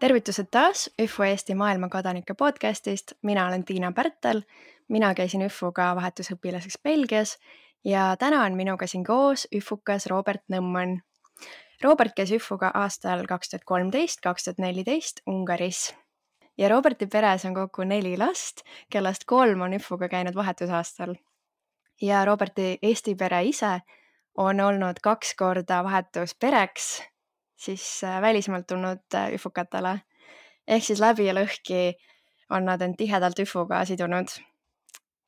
Tervitused taas ÜFO Eesti maailmakodanike podcastist. Mina olen Tiina Pärtel. Mina käisin ÜFOga vahetusõpilaseks Belgias ja täna on minuga siin koos ÜFUkas Robert Nõmman. Robert käis ÜFOga aastal 2013-2014 Ungaris. Ja Roberti peres on kokku 4 last, kellest 3 on ÜFOga käinud vahetusaastal. Ja Roberti Eesti pere ise on olnud 2 korda vahetuspereks siis välismaalt tulnud ÜFUkatele. Ehk siis läbi ja lõhki on nad end tihedalt ÜFUga sidunud.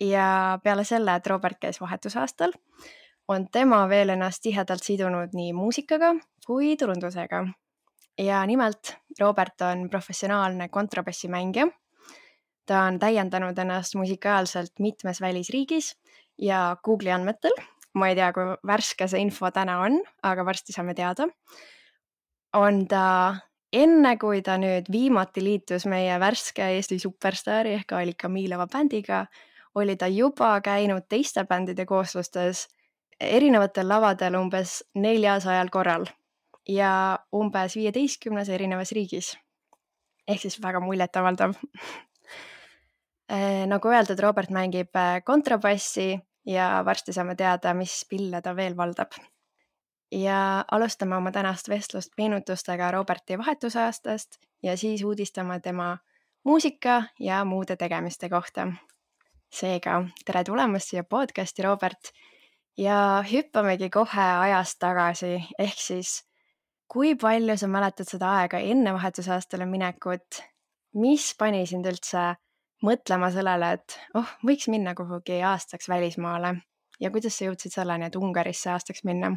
Ja peale selle, et Robert käis vahetusaastal, on tema veel ennast tihedalt sidunud nii muusikaga kui turundusega. Ja nimelt Robert on professionaalne kontrabassimängija. Ta on täiendanud ennast musikaalselt mitmes välisriigis ja Google'i andmetel, ma ei tea, kui värske see info täna on, aga varsti saame teada, on ta enne, kui ta nüüd viimati liitus meie värske Eesti superstaari ehk Alika Miilova bändiga, oli ta juba käinud teiste bändide kooslustes erinevatel lavadel umbes 400 korral ja umbes 15 erinevas riigis. Ehk siis väga muljetavaldav. Nagu öeldud, Robert mängib kontrabassi ja varsti saame teada, mis pille ta veel valdab. Ja alustame oma tänast vestlust meenutustega Roberti vahetusaastast ja siis uudistame tema muusika ja muude tegemiste kohta. Seega, tere tulemast siia podcasti, Robert. Ja hüppamegi kohe ajast tagasi, ehk siis kui palju sa mäletad seda aega enne vahetusaastale minekut? Mis pani sind üldse mõtlema sellele, et võiks minna kuhugi aastaks välismaale? Ja kuidas sa jõudsid selleni, et Ungarisse aastaks minna?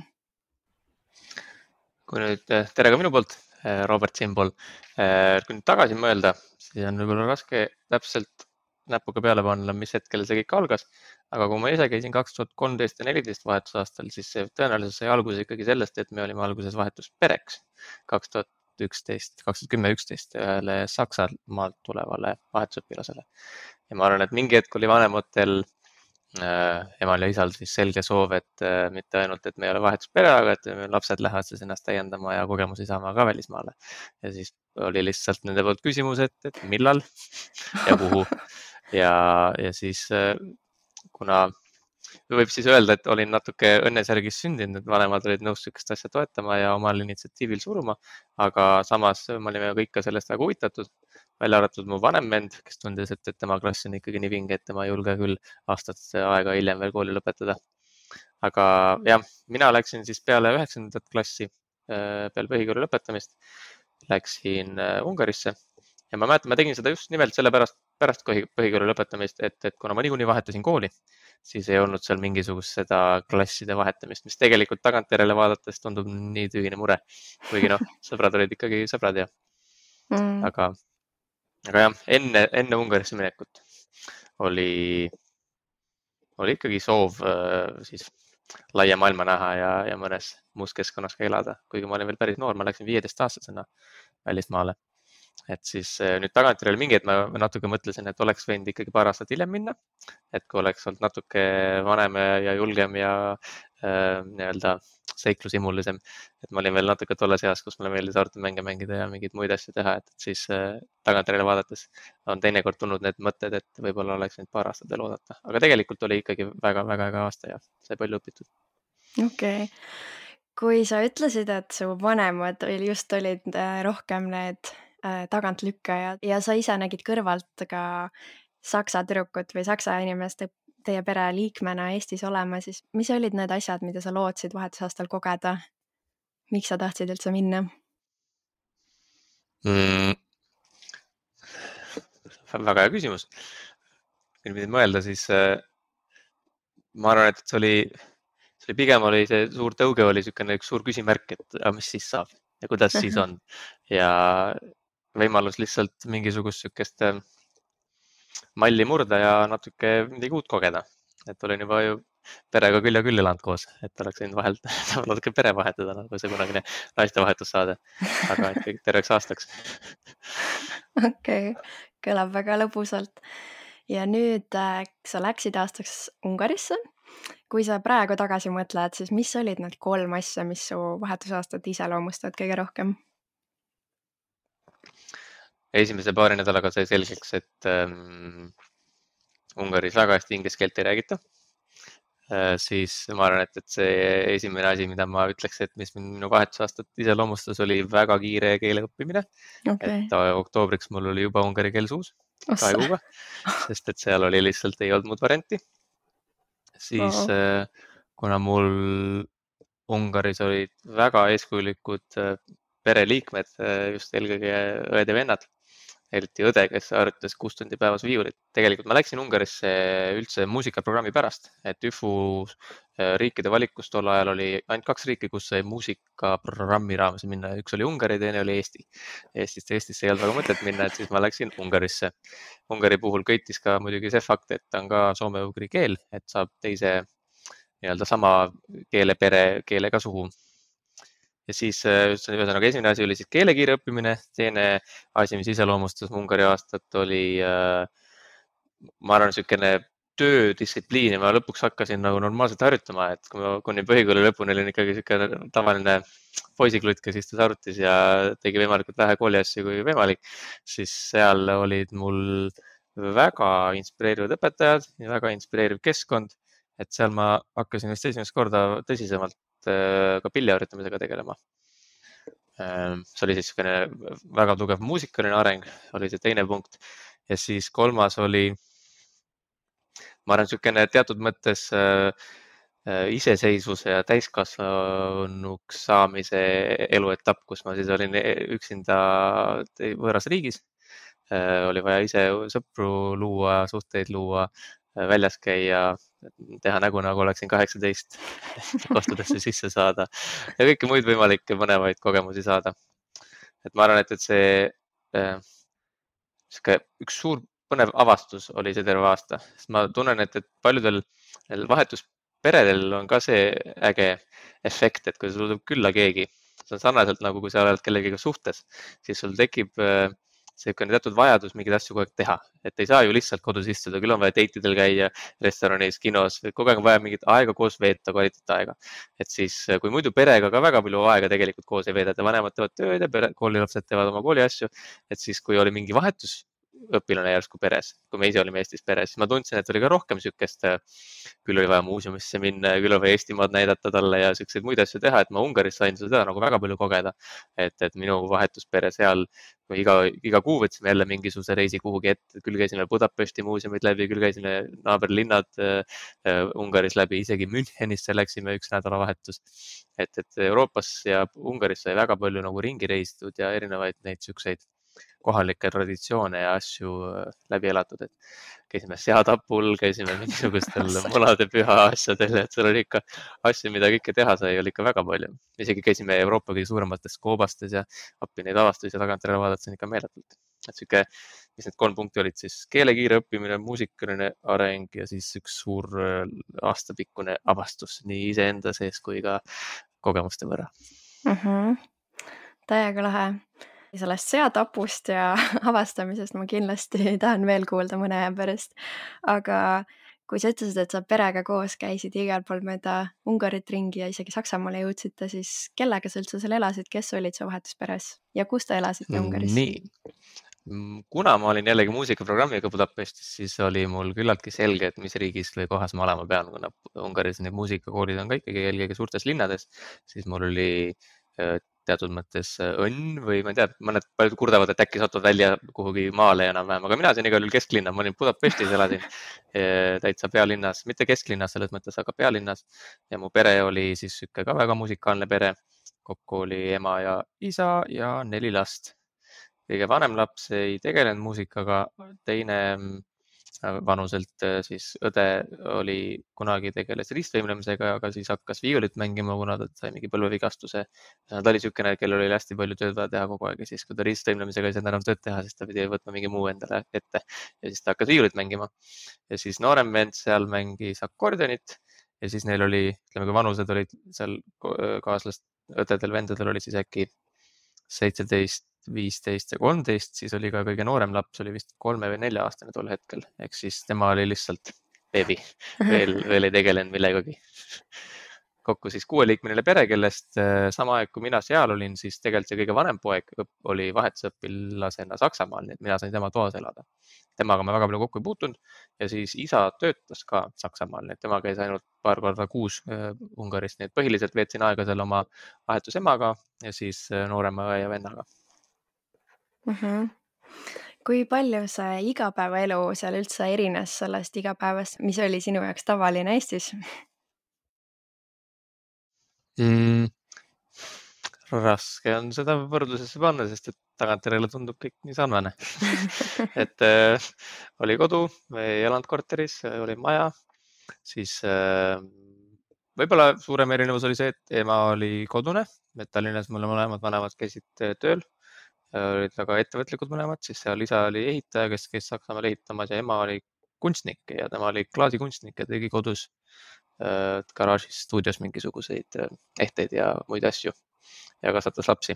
Kui nüüd tere ka minu poolt, Robert siinpool. Kui nüüd tagasi mõelda, siis on võib-olla raske täpselt näpuga peale panna, mis hetkel see kõik algas. Aga kui ma ise käisin 2013 ja 2014 vahetusaastal, siis see tõenäoliselt sai alguse ikkagi sellest, et me olime alguses vahetuspereks 2010-2011 ühele Saksamaalt tulevale vahetusõpilasele. Ja ma arvan, et mingi hetk oli vanematel emal ja isal siis selge soov, et mitte ainult, et me ei ole vahetuspere, aga et lapsed lähevad siis ennast täiendama ja kogemusi saama ka välismaale. Ja siis oli lihtsalt nende poolt küsimus, et millal ja kuhu. Ja siis kuna võib siis öelda, et olin natuke õnnesärgis sündinud, et vanemad olid nõus sükest asja toetama ja omal initsiatiivil suruma, aga samas me olime kõik ka sellest väga huvitatud, välja arvatud mu vanem vend, kes tundis, et tema klass on ikkagi nii vinge, et tema ei julge küll aastat aega hiljem veel kooli lõpetada. Aga jah, mina läksin siis peale 9. klassi, peale põhikooli lõpetamist, läksin Ungarisse ja ma mäletan, ma tegin seda just nimelt pärast põhikooli lõpetamist, et kuna ma niikuinii vahetasin kooli, siis ei olnud seal mingisugust seda klasside vahetamist, mis tegelikult tagantjärele vaadates tundub nii tühine mure. Kuigi sõbrad olid ikkagi sõbrad ja aga jah, enne Ungarisse minekut oli ikkagi soov siis laia maailma näha ja mõnes muus keskkonnas ka elada. Kuigi ma olin veel päris noor, ma läksin 15-aastasena välismaale. Et siis nüüd tagantjärele mingi hetk ma natuke mõtlesin, et oleks võinud ikkagi paar aastat hiljem minna. Et kui oleks olnud natuke vanem ja julgem ja nii-öelda seiklusimulisem, et ma olin veel natuke tolles eas, kus mulle meeldis arvutimänge mängida ja mingeid muid asju teha, et siis tagantjärele vaadates on teinekord tulnud need mõtted, et võib-olla oleks võinud paar aastat veel oodata. Aga tegelikult oli ikkagi väga-väga hea aasta ja sai palju õpitud. Okei. Kui sa ütlesid, et su vanemad just olid rohkem need tagantlükkajad ja sa ise nägid kõrvalt ka saksa tüdrukut või saksa inimest teie pere liikmena Eestis olema, siis mis olid need asjad, mida sa lootsid vahetusaastal kogeda? Miks sa tahtsid üldse minna? Väga hea küsimus. Kui nüüd mõelda, siis ma arvan, et see pigem oli see suur tõuge oli niisugune üks suur küsimärk, et mis siis saab ja kuidas siis on. Ja võimalus lihtsalt mingisugust niisugust malli murda ja natuke midagi uut kogeda. Et olin juba ju perega küll ja küll elanud koos, et oleks võinud vahelt natuke pere vahetada, nagu see kunagine naistevahetussaade, aga ikkagi terveks aastaks. Okei, kõlab väga lõbusalt. Ja nüüd sa läksid aastaks Ungarisse. Kui sa praegu tagasi mõtled, siis mis olid need 3 asja, mis su vahetusaastat iseloomustavad kõige rohkem? esimese paari nädalaga sai selgeks, et Ungaris väga hästi inglise keelt ei räägita. Siis ma arvan, et see esimene asi, mida ma ütleks, et mis minu vahetusaastat iseloomustas, oli väga kiire keele õppimine. Okay. Et oktoobriks mul oli juba ungari keel suus 2 kuuga, sest et seal oli lihtsalt ei olnud muud varianti. Siis kuna mul Ungaris olid väga eeskujulikud pereliikmed, just eelkõige õed ja vennad, eriti õde, kes harjutas 6 tundi päevas viiulit. Tegelikult ma läksin Ungarisse üldse muusikaprogrammi pärast, et ÜFU riikide valikus tol ajal oli ainult 2 riiki, kus sai muusikaprogrammi raames minna. Üks oli Ungari, teine oli Eesti. Eestisse ei olnud väga mõtet minna, et siis ma läksin Ungarisse. Ungari puhul köitis ka muidugi see fakt, et ta on ka soome-ugri keel, et saab teise nii-öelda sama keelega suhu. Ja siis ühesõnaga esimene asi oli siis keelekiire õppimine, teine asi, mis iseloomustas Ungari aastat, oli ma arvan, niisugune töödistsipliin ja ma lõpuks hakkasin nagu normaalselt harjutama, et kui ma kuni põhikooli lõpuni olin ikkagi niisugune tavaline poisiklutt, kes istus arvutis ja tegi võimalikult vähe kooliasju kui võimalik, siis seal olid mul väga inspireerivad õpetajad ja väga inspireeriv keskkond, et seal ma hakkasin vist esimest korda tõsisemalt ka pilli harjutamisega tegelema. See oli siis väga tugev muusikaline areng, oli see teine punkt. Ja siis kolmas oli, ma arvan, niisugune teatud mõttes iseseisvuse ja täiskasvanuks saamise eluetapp, kus ma siis olin üksinda võõras riigis. Oli vaja ise sõpru luua, suhteid luua, väljas käia, teha nägu, nagu oleksin 18, kostudesse sisse saada ja kõiki muid võimalikke põnevaid kogemusi saada. Et ma arvan, et see üks suur põnev avastus oli see terve aasta, sest ma tunnen, et paljudel vahetusperedel on ka see äge efekt, et kui sul tuleb külla keegi, see on sarnaselt nagu kui sa oled kellegiga suhtes, siis sul tekib selline teatud vajadus mingeid asju kogu aeg teha, et ei saa ju lihtsalt kodus istuda, küll on vaja date'idel käia, restoranis, kinos, kogu aeg on vaja mingit aega koos veeta, kvaliteetaega. Et siis, kui muidu perega ka väga palju aega tegelikult koos ei veedeta, vanemad teevad tööd ja koolilapsed teevad oma kooliasju, et siis, kui oli mingi vahetusõpilane järsku peres, kui me ise olime Eestis peres, siis ma tundsin, et oli ka rohkem niisugust, küll oli vaja muuseumisse minna ja küll oli vaja Eestimaad näidata talle ja niisuguseid muid asju teha, et ma Ungaris sain seda nagu väga palju kogeda, et minu vahetuspere seal, iga kuu võtsime jälle mingisuguse reisi kuhugi ette, küll käisime Budapesti muuseumid läbi, küll käisime naaberlinnad Ungaris läbi, isegi Münchenisse läksime üks nädalavahetus. Et Euroopas ja Ungaris sai väga palju nagu ringi reisitud ja erinevaid neid niisuguseid kohalikke traditsioone ja asju läbi elatud, et käisime seatapul, käisime mingisugustel munade püha asjadel, et seal oli ikka asju, mida kõike teha sai, oli ikka väga palju. Isegi käisime Euroopa kõige suuremates koobastes ja appi neid avastusi ja tagantjärele vaadata on ikka meeletult. Et siuke, mis need 3 punkti olid siis keelekiire õppimine, muusikaline areng ja siis üks suur aastapikkune avastus nii iseenda sees kui ka kogemuste võrra. Täiega lahe. Sellest seatapust ja avastamisest ma kindlasti tahan veel kuulda mõne aja pärast. Aga kui sa ütlesid, et sa perega koos käisid igal pool mööda Ungarit ringi ja isegi Saksamaale jõudsite, siis kellega sa üldse seal elasid, kes olid su vahetusperes ja kus te elasite Ungaris? Nii, kuna ma olin jällegi muusikaprogrammiga Budapestis, siis oli mul küllaltki selge, et mis riigis või kohas ma olema pean, kuna Ungaris need muusikakoolid on ka ikkagi eelkõige suurtes linnades, siis mul oli teatud mõttes õnn või ma ei tea, mõned paljud kurdavad, et äkki satuvad välja kuhugi maale enam-vähem, aga mina sain igal juhul kesklinna, ma olin Budapestis, elasin täitsa pealinnas, mitte kesklinnas selles mõttes, aga pealinnas ja mu pere oli siis ka väga musikaalne pere, kokku oli ema ja isa ja 4 last. Kõige vanem laps ei tegelenud muusikaga, teine vanuselt siis õde oli kunagi tegeles ristvõimlemisega, aga siis hakkas viiulit mängima, kuna ta sai mingi põlvevigastuse. Ta oli niisugune, kellel oli hästi palju tööd vaja teha kogu aeg ja siis, kui ta ristvõimlemisega ei saanud enam tööd teha, siis ta pidi võtma mingi muu endale ette ja siis ta hakkas viiulit mängima. Ja siis noorem vend seal mängis akordionit ja siis neil oli, ütleme, kui vanused olid seal kaaslast, õdedel, vendadel oli siis äkki 17, 15 ja 13, siis oli ka kõige noorem laps, oli vist 3 või 4 aastane tol hetkel, ehk siis tema oli lihtsalt beebi, veel ei tegelenud millegagi. kokku siis 6-liikmeline pere, kellest sama aeg, kui mina seal olin, siis tegelikult see kõige vanem poeg oli vahetusõpilasena Saksamaal, nii et mina sain tema toas elada. Temaga ma väga palju kokku ei puutunud ja siis isa töötas ka Saksamaal, nii et tema käis ainult paar korda kuus Ungaris, nii et põhiliselt veetsin aega seal oma vahetusemaga ja siis noorema õe ja vennaga. Kui palju see igapäevaelu seal üldse erines sellest igapäevast, mis oli sinu jaoks tavaline Eestis? Raske on seda võrdlusesse panna, sest et tagantjärele tundub kõik nii sarnane. et oli kodu, ei elanud korteris, oli maja, siis võib-olla suurem erinevus oli see, et ema oli kodune, et Tallinnas mul mõlemad vanemad käisid tööl, olid väga ettevõtlikud mõlemad, siis seal isa oli ehitaja, kes käis Saksamaal ehitamas ja ema oli kunstnik ja tema oli klaasikunstnik ja tegi kodus garaažis, stuudios mingisuguseid ehteid ja muid asju ja kasvatas lapsi.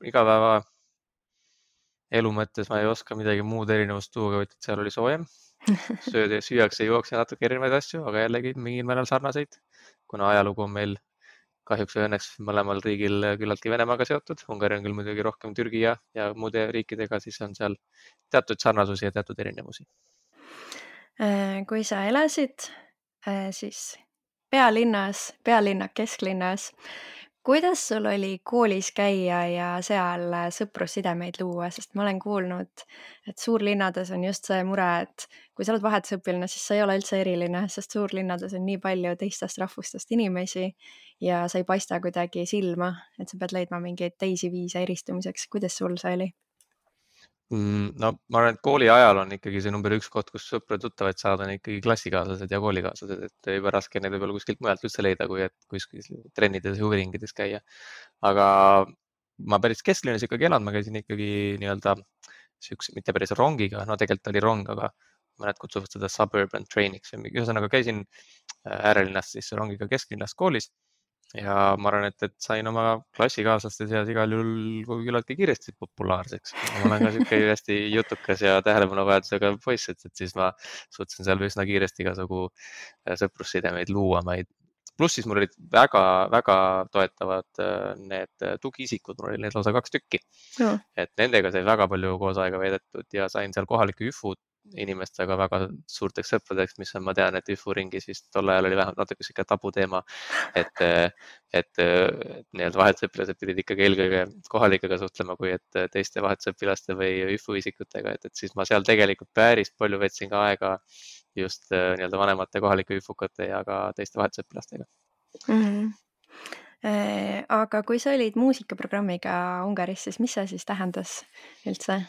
Igapäeva elu mõttes ma ei oska midagi muud erinevust tuua, vaid seal oli soojem. Süüakse, juuakse natuke erinevaid asju, aga jällegi mingil määral sarnaseid, kuna ajalugu on meil kahjuks või õnneks mõlemal riigil küllaltki Venemaaga seotud. Ungari on küll muidugi rohkem Türgi ja muude riikidega, siis on seal teatud sarnasusi ja teatud erinevusi. Kui sa elasid siis pealinna kesklinnas, kuidas sul oli koolis käia ja seal sõprussidemeid luua, sest ma olen kuulnud, et suurlinnades on just see mure, et kui sa oled vahetusõpilane, siis sa ei ole üldse eriline, sest suurlinnades on nii palju teistest rahvustest inimesi ja sa ei paista kuidagi silma, et sa pead leidma mingeid teisi viise eristumiseks. Kuidas sul see oli? No ma arvan, et kooli ajal on ikkagi see number 1 koht, kus sõpra-tuttavaid saada, on ikkagi klassikaaslased ja koolikaaslased, et juba raske neid võib-olla kuskilt mujalt üldse leida, kui et kuskil trennides ja huviringides käia. Aga ma päris kesklinnas ikkagi elan, ma käisin ikkagi nii-öelda siukse, mitte päris rongiga, no tegelikult oli rong, aga mõned kutsuvad seda suburban train'iks. Ühesõnaga käisin äärelinnast siis rongiga kesklinnast koolis. Ja ma arvan, et sain oma klassikaaslaste seas igal juhul küllaltki kiiresti populaarseks. Ma olen ka siuke hästi jutukas ja tähelepanuvajadusega poiss, et siis ma suutsin seal üsna kiiresti igasugu sõprussidemeid luua. Pluss siis mul olid väga toetavad need tugiisikud, mul oli neid lausa 2 tükki. No. Et nendega sai väga palju koos aega veedetud ja sain seal kohalike üfud inimestega väga suurteks sõpradeks, mis on, ma tean, et ÜFU ringis vist tol ajal oli vähemalt natuke siuke tabuteema, et nii-öelda vahetusõpilased pidid ikkagi eelkõige kohalikega suhtlema, kui et teiste vahetusõpilaste või ÜFU isikutega, et siis ma seal tegelikult päris palju veetsin ka aega just nii-öelda vanemate kohalike ÜFU-kate ja ka teiste vahetusõpilastega. Aga kui sa olid muusikaprogrammiga Ungaris, siis mis see siis tähendas üldse?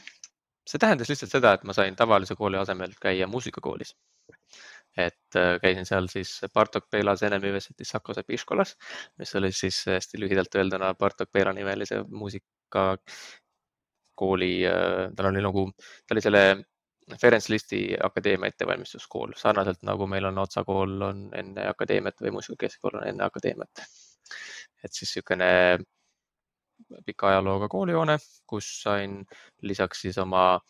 See tähendas lihtsalt seda, et ma sain tavalise kooli asemel käia muusikakoolis. Et käisin seal siis Bartok Bela Zenemüvesetis Sakose Piškolas, mis oli siis hästi lühidalt öelduna Bartok Bela nimelise muusikakooli. Ta oli selle Ferenc Listi akadeemia ettevalmistuskool, sarnaselt nagu meil on Otsa kool on enne akadeemiat või muusikakeskkool on enne akadeemiat. Et siis niisugune pika ajalooga koolihoone, kus sain lisaks siis oma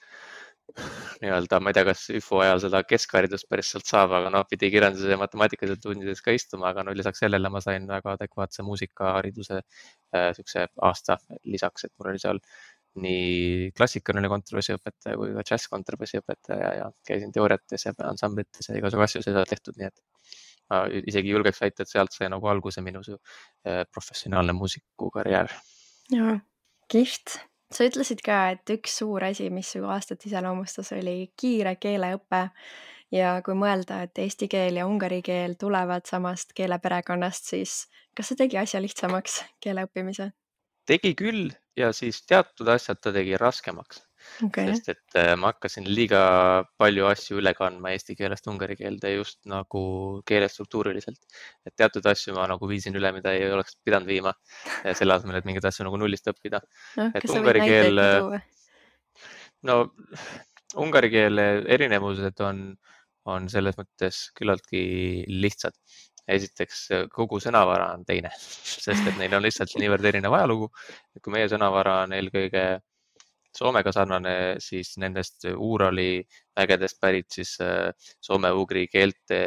nii-öelda, ma ei tea, kas ÜFO ajal seda keskharidust päris sealt saab, aga pidi kirjanduse ja matemaatikaselt tundides ka istuma, aga lisaks sellele ma sain väga adekvaatse muusikahariduse siukse aasta lisaks, et mul oli seal nii klassikaline kontrabassiõpetaja kui ka džässkontrabassiõpetaja ja käisin teooriates ja ansamblites ja igasugu asju seda tehtud, nii et ma isegi julgeks väita, et sealt sai nagu alguse minu professionaalne muusikukarjäär. Jaa, kihvt. Sa ütlesid ka, et üks suur asi, mis su aastat iseloomustas, oli kiire keeleõpe ja kui mõelda, et eesti keel ja ungari keel tulevad samast keeleperekonnast, siis kas see tegi asja lihtsamaks keele õppimise? Tegi küll ja siis teatud asjad ta tegi raskemaks, sest et ma hakkasin liiga palju asju üle kandma eesti keelest ungari keelde just nagu keelestruktuuriliselt. Et teatud asju ma nagu viisin üle, mida ei oleks pidanud viima selle asemel, et mingeid asju nagu nullist õppida. Kas sa võid näiteid tuua? No ungari keele erinevused on selles mõttes küllaltki lihtsad. Esiteks kogu sõnavara on teine, sest et neil on lihtsalt niivõrd erinev ajalugu. Kui meie sõnavara on eelkõige Soomega sarnane, siis nendest Uurali mägedest pärit siis soome-ugri keelte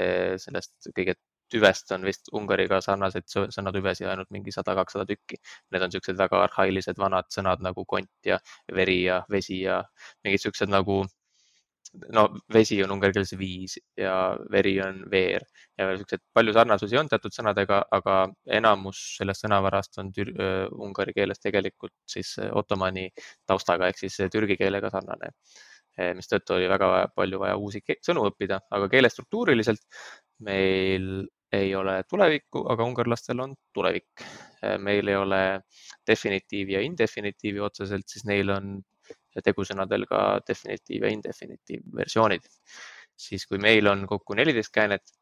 sellest kõige tüvest on vist Ungariga sarnaseid sõnatüvesi ainult mingi 100-200 tükki. Need on siuksed väga arhailised vanad sõnad nagu kont ja veri ja vesi ja mingid siuksed nagu, no vesi on ungari keeles viis ja veri on veer ja siuksed palju sarnasusi on teatud sõnadega, aga enamus sellest sõnavarast on ungari keeles tegelikult siis ottomani taustaga ehk siis türgi keelega sarnane, mistõttu oli väga palju vaja uusi sõnu õppida, aga keelestruktuuriliselt meil ei ole tulevikku, aga ungarlastel on tulevik. Meil ei ole definitiivi ja indefinitiivi otseselt, siis neil on tegusõnadel ka definitiiv ja indefinitiiv versioonid. Siis kui meil on kokku 14 käänet,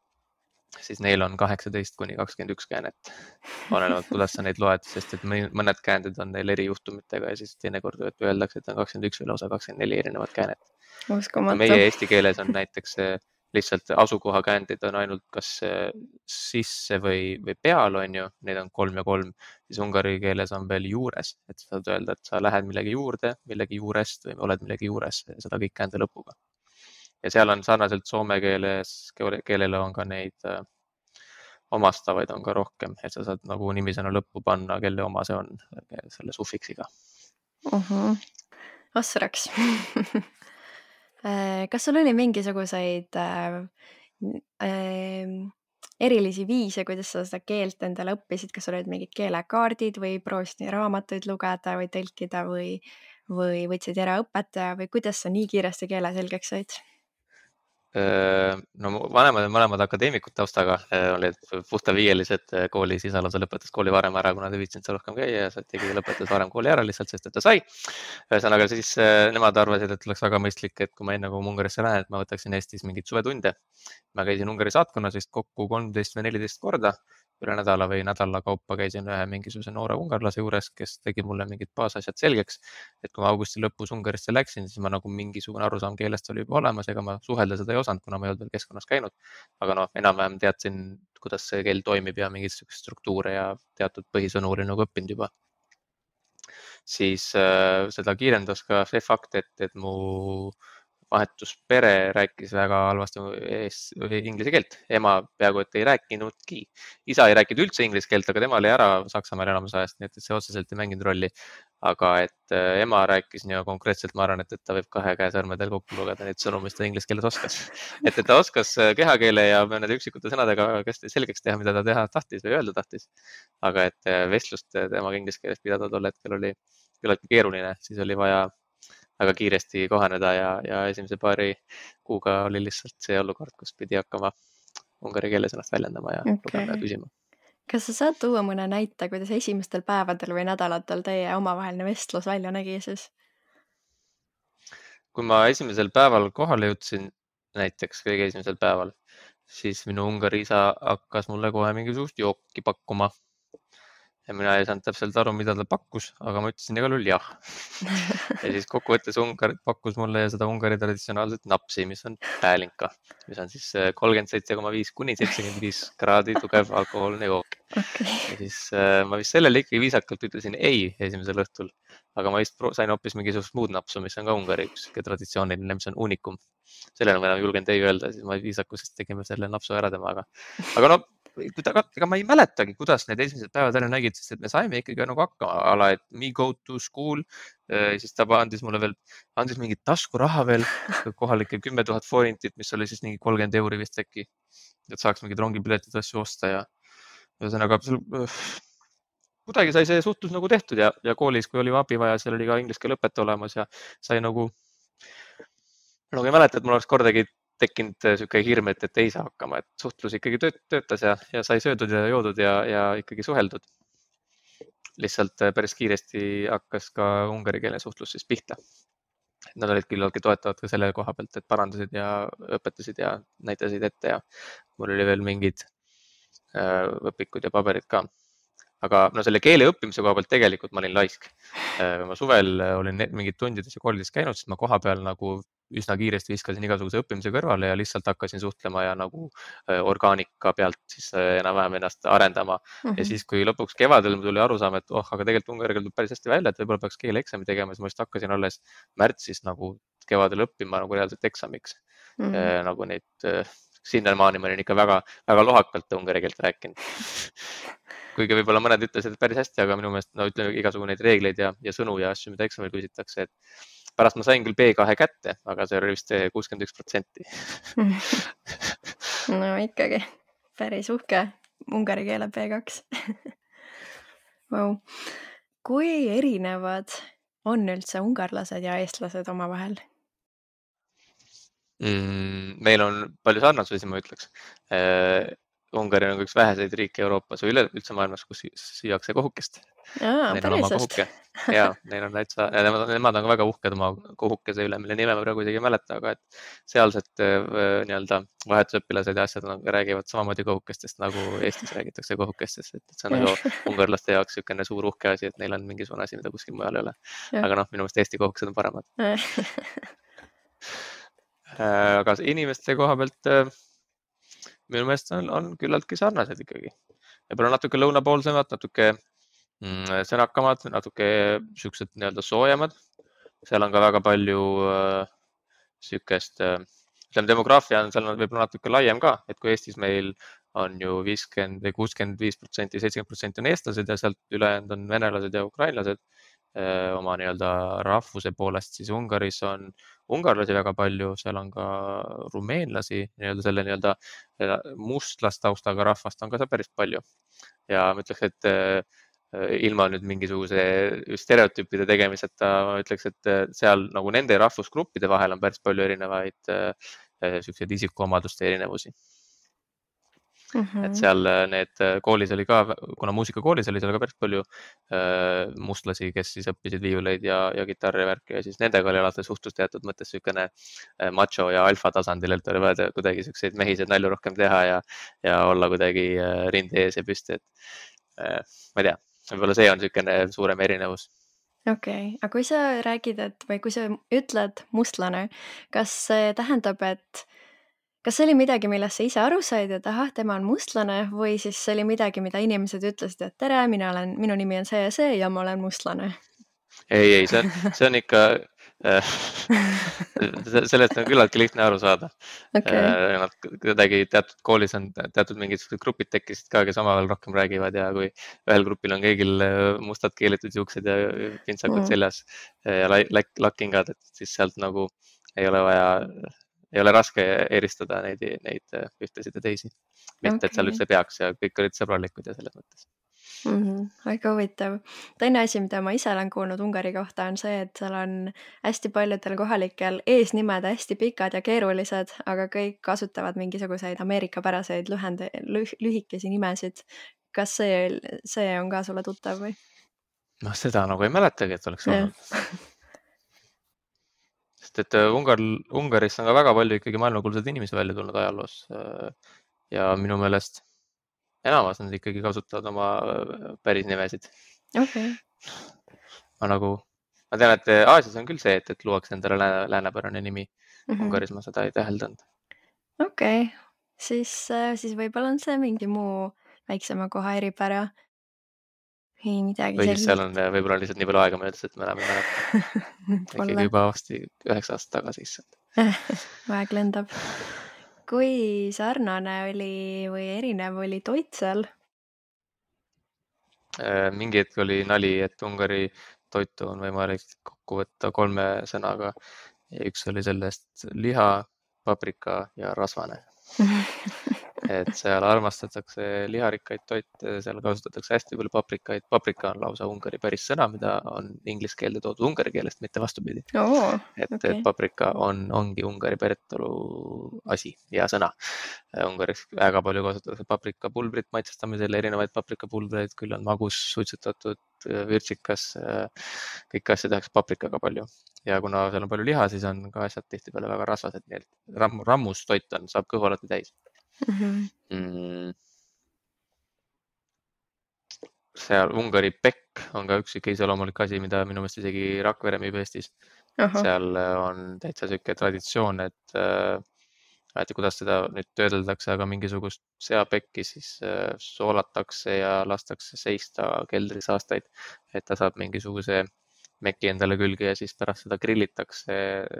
siis neil on 18-21 käänet. Olenevalt, kuidas sa neid loed, sest et mõned käänded on neil erijuhtumitega ja siis teinekord öeldakse, et on 21 või lausa 24 erinevat käänet. Meie eesti keeles on näiteks lihtsalt asukohakäändid on ainult kas sisse või peal, on ju, neid on 3 ja 3, siis ungari keeles on veel juures, et saad öelda, et sa lähed millegi juurde, millegi juurest või oled millegi juures, seda kõik käände lõpuga. Ja seal on sarnaselt soome keelele on ka neid omastavaid on ka rohkem, et sa saad nagu nimisõna lõppu panna, kelle oma see on selle sufiksiga. Ossraks. Kas sul oli mingisuguseid erilisi viise, kuidas sa seda keelt endale õppisid, kas olid mingid keelekaardid või proovisid raamatuid lugeda või tõlkida või võtsid eraõpetaja või kuidas sa nii kiiresti keele selgeks said? No vanemad on mõlemad akadeemikud taustaga, olid puhtaviielised koolis, isa lausa lõpetas kooli varem ära, kuna ta viitsinud seal rohkem käia ja tegi lõpetas varem kooli ära lihtsalt, sest et ta sai. Ühesõnaga siis nemad arvasid, et oleks väga mõistlik, et kui ma enne kui Ungarisse lähen, et ma võtaksin Eestis mingeid suvetunde. Ma käisin Ungari saatkonnas vist kokku 13 või 14 korda. Üle nädala või nädala kaupa käisin ühe mingisuguse noore ungarlase juures, kes tegi mulle mingid baasasjad selgeks. Et kui ma augusti lõpus Ungarisse läksin, siis ma nagu mingisugune arusaam keelest oli juba olemas, ega ma suhelda seda ei osanud, kuna ma ei olnud veel keskkonnas käinud. Aga noh, enam-vähem teadsin, kuidas see keel toimib ja mingid struktuure ja teatud põhisõnu oli nagu õppinud juba. Siis seda kiirendas ka see fakt, et mu vahetuspere rääkis väga halvasti inglise keelt. Ema peaaegu et ei rääkinudki. Isa ei rääkinud üldse inglise keelt, aga tema oli ära Saksamaal enamus ajast, nii et see otseselt ei mänginud rolli. Aga et ema rääkis nii konkreetselt, ma arvan, et ta võib 2 käe sõrmedel kokku lugeda neid sõnu, mis ta inglise keeles oskas. Et ta oskas kehakeele ja nende üksikute sõnadega selgeks teha, mida ta teha tahtis või öelda tahtis. Aga et vestlust temaga inglise keeles pidada tol hetkel oli küllaltki keeruline, siis oli vaja väga kiiresti kohaneda ja esimese paari kuuga oli lihtsalt see olukord, kus pidi hakkama ungari keeles ennast väljendama ja lugema ja küsima. Kas sa saad tuua mõne näite, kuidas esimestel päevadel või nädalatel teie omavaheline vestlus välja nägi siis? Kui ma esimesel päeval kohale jõudsin, näiteks kõige esimesel päeval, siis minu ungari isa hakkas mulle kohe mingisugust jooki pakkuma. Ja mina ei saanud täpselt aru, mida ta pakkus, aga ma ütlesin igal juhul jah. Ja siis kokkuvõttes Ungari pakkus mulle seda Ungari traditsionaalset napsi, mis on päälinka, mis on siis 37,5 kuni 75 kraadi tugev alkohoolne jook. Ja siis ma vist sellele ikkagi viisakalt ütlesin ei esimesel õhtul, aga ma vist sain hoopis mingisugust muud napsu, mis on ka Ungari üks traditsiooniline, mis on unikum. Sellele ma enam julgen ei öelda, siis ma viisakusest tegime selle napsu ära temaga. Aga no, ega ma ei mäletagi, kuidas need esimesed päevad ära nägid, sest et me saime ikkagi nagu hakkama, et me go to school, siis ta andis mulle veel, andis mingit taskuraha veel, kohalike 10 000 forintit, mis oli siis mingi 30 euri vist äkki, et saaks mingid rongipiletid asju osta ja ühesõnaga kuidagi sai see suhtlus nagu tehtud ja koolis, kui oli abi vaja, seal oli ka inglise keele õpetaja olemas ja sai nagu ei mäleta, et mul oleks kordagi tekkinud siuke hirm, et ei saa hakkama, et suhtlus ikkagi töötas ja sai söödud ja joodud ja ikkagi suheldud. Lihtsalt päris kiiresti hakkas ka ungari keele suhtlus siis pihta. Nad olid küllaltki toetavad ka selle koha pealt, et parandasid ja õpetasid ja näitasid ette ja mul oli veel mingid õpikud ja paberid ka. Aga no selle keele õppimise koha pealt tegelikult ma olin laisk. Ma suvel olin mingid tundides ja koolides käinud, siis ma koha peal nagu üsna kiiresti viskasin igasuguse õppimise kõrvale ja lihtsalt hakkasin suhtlema ja nagu orgaanika pealt siis enam-vähem ennast arendama. Ja siis, kui lõpuks kevadel tuli arusaam, et aga tegelikult ungari keel tuleb päris hästi välja, et võib-olla peaks keeleeksami tegema, siis ma just hakkasin alles märtsis nagu kevadel õppima nagu reaalselt eksamiks. Nagu neid sinnamaani ma olin ikka väga, väga lohakalt ungari keelt rääkinud. Kuigi võib-olla mõned ütlesid päris hästi, aga minu meelest no ütleme igasugu neid reegleid ja sõnu ja asju, mida eksamil küsitakse, et pärast ma sain küll B2 kätte, aga see oli vist 61%. No ikkagi päris uhke ungari keele B2. Wow. Kui erinevad on üldse ungarlased ja eestlased omavahel? Meil on palju sarnasusi, ma ütleks. Ungari on üks väheseid riike Euroopas või üldse maailmas, kus süüakse kohukest. Neil on oma kohuke. Ja, neil on täitsa, nemad on ka väga uhked oma kohukese üle, mille nime ma praegu isegi ei mäleta, aga et sealsed nii-öelda vahetusõpilased ja asjad räägivad samamoodi kohukestest, nagu Eestis räägitakse kohukestest. Et see on nagu ungarlaste jaoks niisugune suur uhke asi, et neil on mingisugune asi, mida kuskil mujal ei ole. Aga noh, minu meelest Eesti kohukesed on paremad. Aga inimeste koha pealt minu meelest on küllaltki sarnased ikkagi. Võib-olla natuke lõunapoolsemad, natuke sõnakamad, natuke siuksed nii-öelda soojemad. Seal on ka väga palju siukest, ütleme demograafia on seal võib-olla natuke laiem ka, et kui Eestis meil on ju 50 või 65%, 70% on eestlased ja sealt ülejäänud on venelased ja ukrainlased oma nii-öelda rahvuse poolest, siis Ungaris on ungarlasi väga palju, seal on ka rumeenlasi, nii-öelda selle nii-öelda mustlastaustaga rahvast on ka seal päris palju. Ja ma ütleks, et ilma nüüd mingisuguse stereotüüpide tegemiseta, ma ütleks, et seal nagu nende rahvusgruppide vahel on päris palju erinevaid siukseid isikuomaduste erinevusi. Et seal need koolis oli ka, kuna muusikakoolis oli seal ka päris palju mustlasi, kes siis õppisid viiuleid ja kitarri värki ja siis nendega oli alati suhtlus teatud mõttes niisugune macho ja alfa tasandil, et oli vaja kuidagi selliseid mehiseid nalju rohkem teha ja olla kuidagi rinde ees ja püsti, et ma ei tea, võib-olla see on niisugune suurem erinevus. Okei, aga kui sa räägid, või kui sa ütled mustlane, kas see tähendab, et kas see oli midagi, millest sa ise aru said, et ahah, tema on mustlane või siis see oli midagi, mida inimesed ütlesid, et tere, minu nimi on see ja ma olen mustlane? Ei, see on ikka, sellest on küllaltki lihtne aru saada. Nad kuidagi teatud koolis on teatud mingid grupid tekkisid ka, kes omavahel rohkem räägivad ja kui ühel grupil on kõigil mustad keelitud juuksed ja pintsakud seljas ja lakkingad, et siis sealt nagu ei ole raske eristada neid ühtesid ja teisi. Mitte, et seal üldse peaks ja kõik olid sõbralikud ja selles mõttes. Väga huvitav. Teine asi, mida ma ise olen kuulnud Ungari kohta, on see, et seal on hästi paljudel kohalikel eesnimed hästi pikad ja keerulised, aga kõik kasutavad mingisuguseid ameerikapäraseid lühikesi nimesid. Kas see on ka sulle tuttav või? No seda nagu ei mäletagi, et oleks olnud. Sest et Ungaris on ka väga palju ikkagi maailmakuulsaid inimesi välja tulnud ajaloos ja minu meelest enamus nad ikkagi kasutavad oma päris nimesid. Okay. Ma tean, et Aasias on küll see, et luuakse endale läänepärane nimi. Ungaris ma seda ei täheldanud. Okei, siis võib-olla on see mingi muu väiksema koha eripära. Ei midagi või siis seal on võib-olla lihtsalt nii palju aega möödas, et me enam ei mäleta. Ikkagi juba vasti 9 aastat tagasi issand. Aeg lendab. Kui sarnane oli või erinev oli toit seal? Mingi hetk oli nali, et Ungari toitu on võimalik kokku võtta 3 sõnaga. Ja üks oli sellest liha, paprika ja rasvane. Et seal armastatakse liharikkaid toite, seal kasutatakse hästi palju paprikaid. Paprika on lausa Ungari päris sõna, mida on inglise keelde toodud ungari keelest, mitte vastupidi. Et paprika ongi Ungari päritolu asi ja sõna. Ungaris väga palju kasutatakse paprikapulbrit maitsestamisel, erinevaid paprikapulbreid, küll on magus, suitsetatud, virtsikas, kõik asja tehakse paprikaga palju. Ja kuna seal on palju liha, siis on ka asjad tihtipeale väga rasvased, nii et rammus toit saab kõhu alati täis. Seal Ungari pekk on ka üks iseloomulik asi, mida minu meelest isegi Rakvere müüb Eestis. Seal on täitsa siuke traditsioon, et kuidas seda nüüd töödeldakse, aga mingisugust seapekki siis soolatakse ja lastakse seista keldris aastaid, et ta saab mingisuguse meki endale külge ja siis pärast seda grillitakse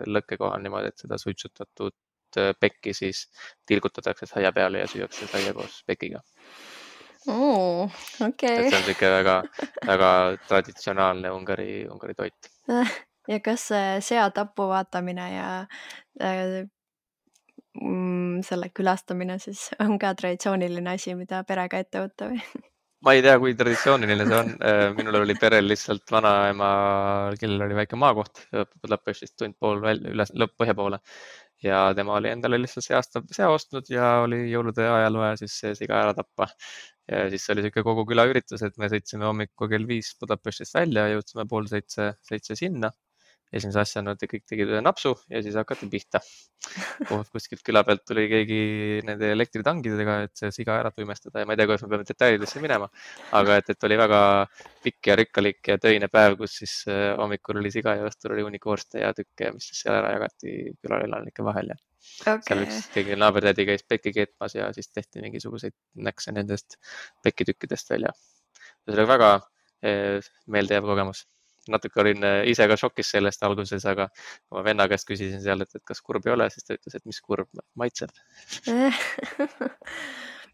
lõkke kohal niimoodi, et seda suitsutatud pekki siis tilgutatakse saia peale ja süüakse saia koos pekiga. Okei. See on siuke väga, väga traditsionaalne Ungari toit. Ja kas see seatapu vaatamine ja selle külastamine siis on ka traditsiooniline asi, mida perega ette võtta või? Ma ei tea, kui traditsiooniline see on. Minul oli perel lihtsalt vanaema, kellel oli väike maakoht Budapestist tund pool üles põhja poole ja tema oli endale lihtsalt see aasta sea ostnud ja oli jõulude ajal vaja siis see siga ära tappa. Ja siis oli siuke kogu küla üritus, et me sõitsime hommikul kell 5 Budapestist välja ja jõudsime 6:30 sinna. Esimese asjana kõik tegid ühe napsu ja siis hakati pihta. Kuskilt küla pealt tuli keegi nende elektritangidega, et see siga ära tuimestada ja ma ei tea, kuidas me peame detailidesse minema, aga et oli väga pikk ja rikkalik ja töine päev, kus siis hommikul oli siga ja õhtul oli hunnik vorste ja tükke, mis siis seal ära jagati külaelanike vahel ja seal üks keegi naabertädi käis pekki keetmas ja siis tehti mingisuguseid näkse nendest pekkitükkidest välja. See oli väga meeldejääv kogemus. Natuke olin ise ka šokis sellest alguses, aga kui ma venna käest küsisin seal, et kas kurb ei ole, siis ta ütles, et mis kurb, maitseb.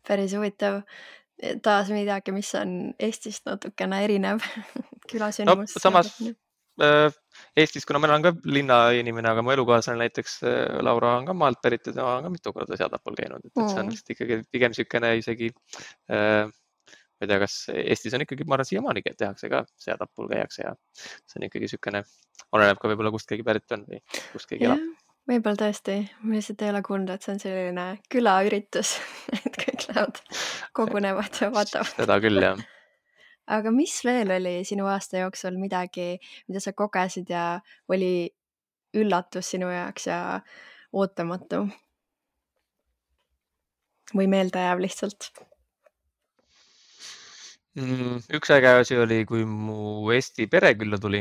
Päris huvitav. Taas midagi, mis on Eestist natukene erinev külasündmus. No samas Eestis, kuna ma olen ka linnainimene, aga mu elukaaslane näiteks Laura on ka maalt pärit ja tema on ka mitu korda seatapul käinud, et see on lihtsalt ikkagi pigem niisugune isegi ma ei tea, kas Eestis on ikkagi, ma arvan, siiamaani tehakse ka seatapul käiakse ja see on ikkagi niisugune, oleneb ka võib-olla kust keegi pärit on või kust keegi elab. Võib-olla tõesti, ma lihtsalt ei ole kuulnud, et see on selline külaüritus, et kõik lähevad, kogunevad ja vaatavad. Seda küll, jah. Aga mis veel oli sinu aasta jooksul midagi, mida sa kogesid ja oli üllatus sinu jaoks ja ootamatu? Või meeldejääv lihtsalt? Üks äge asi oli, kui mu Eesti pere külla tuli,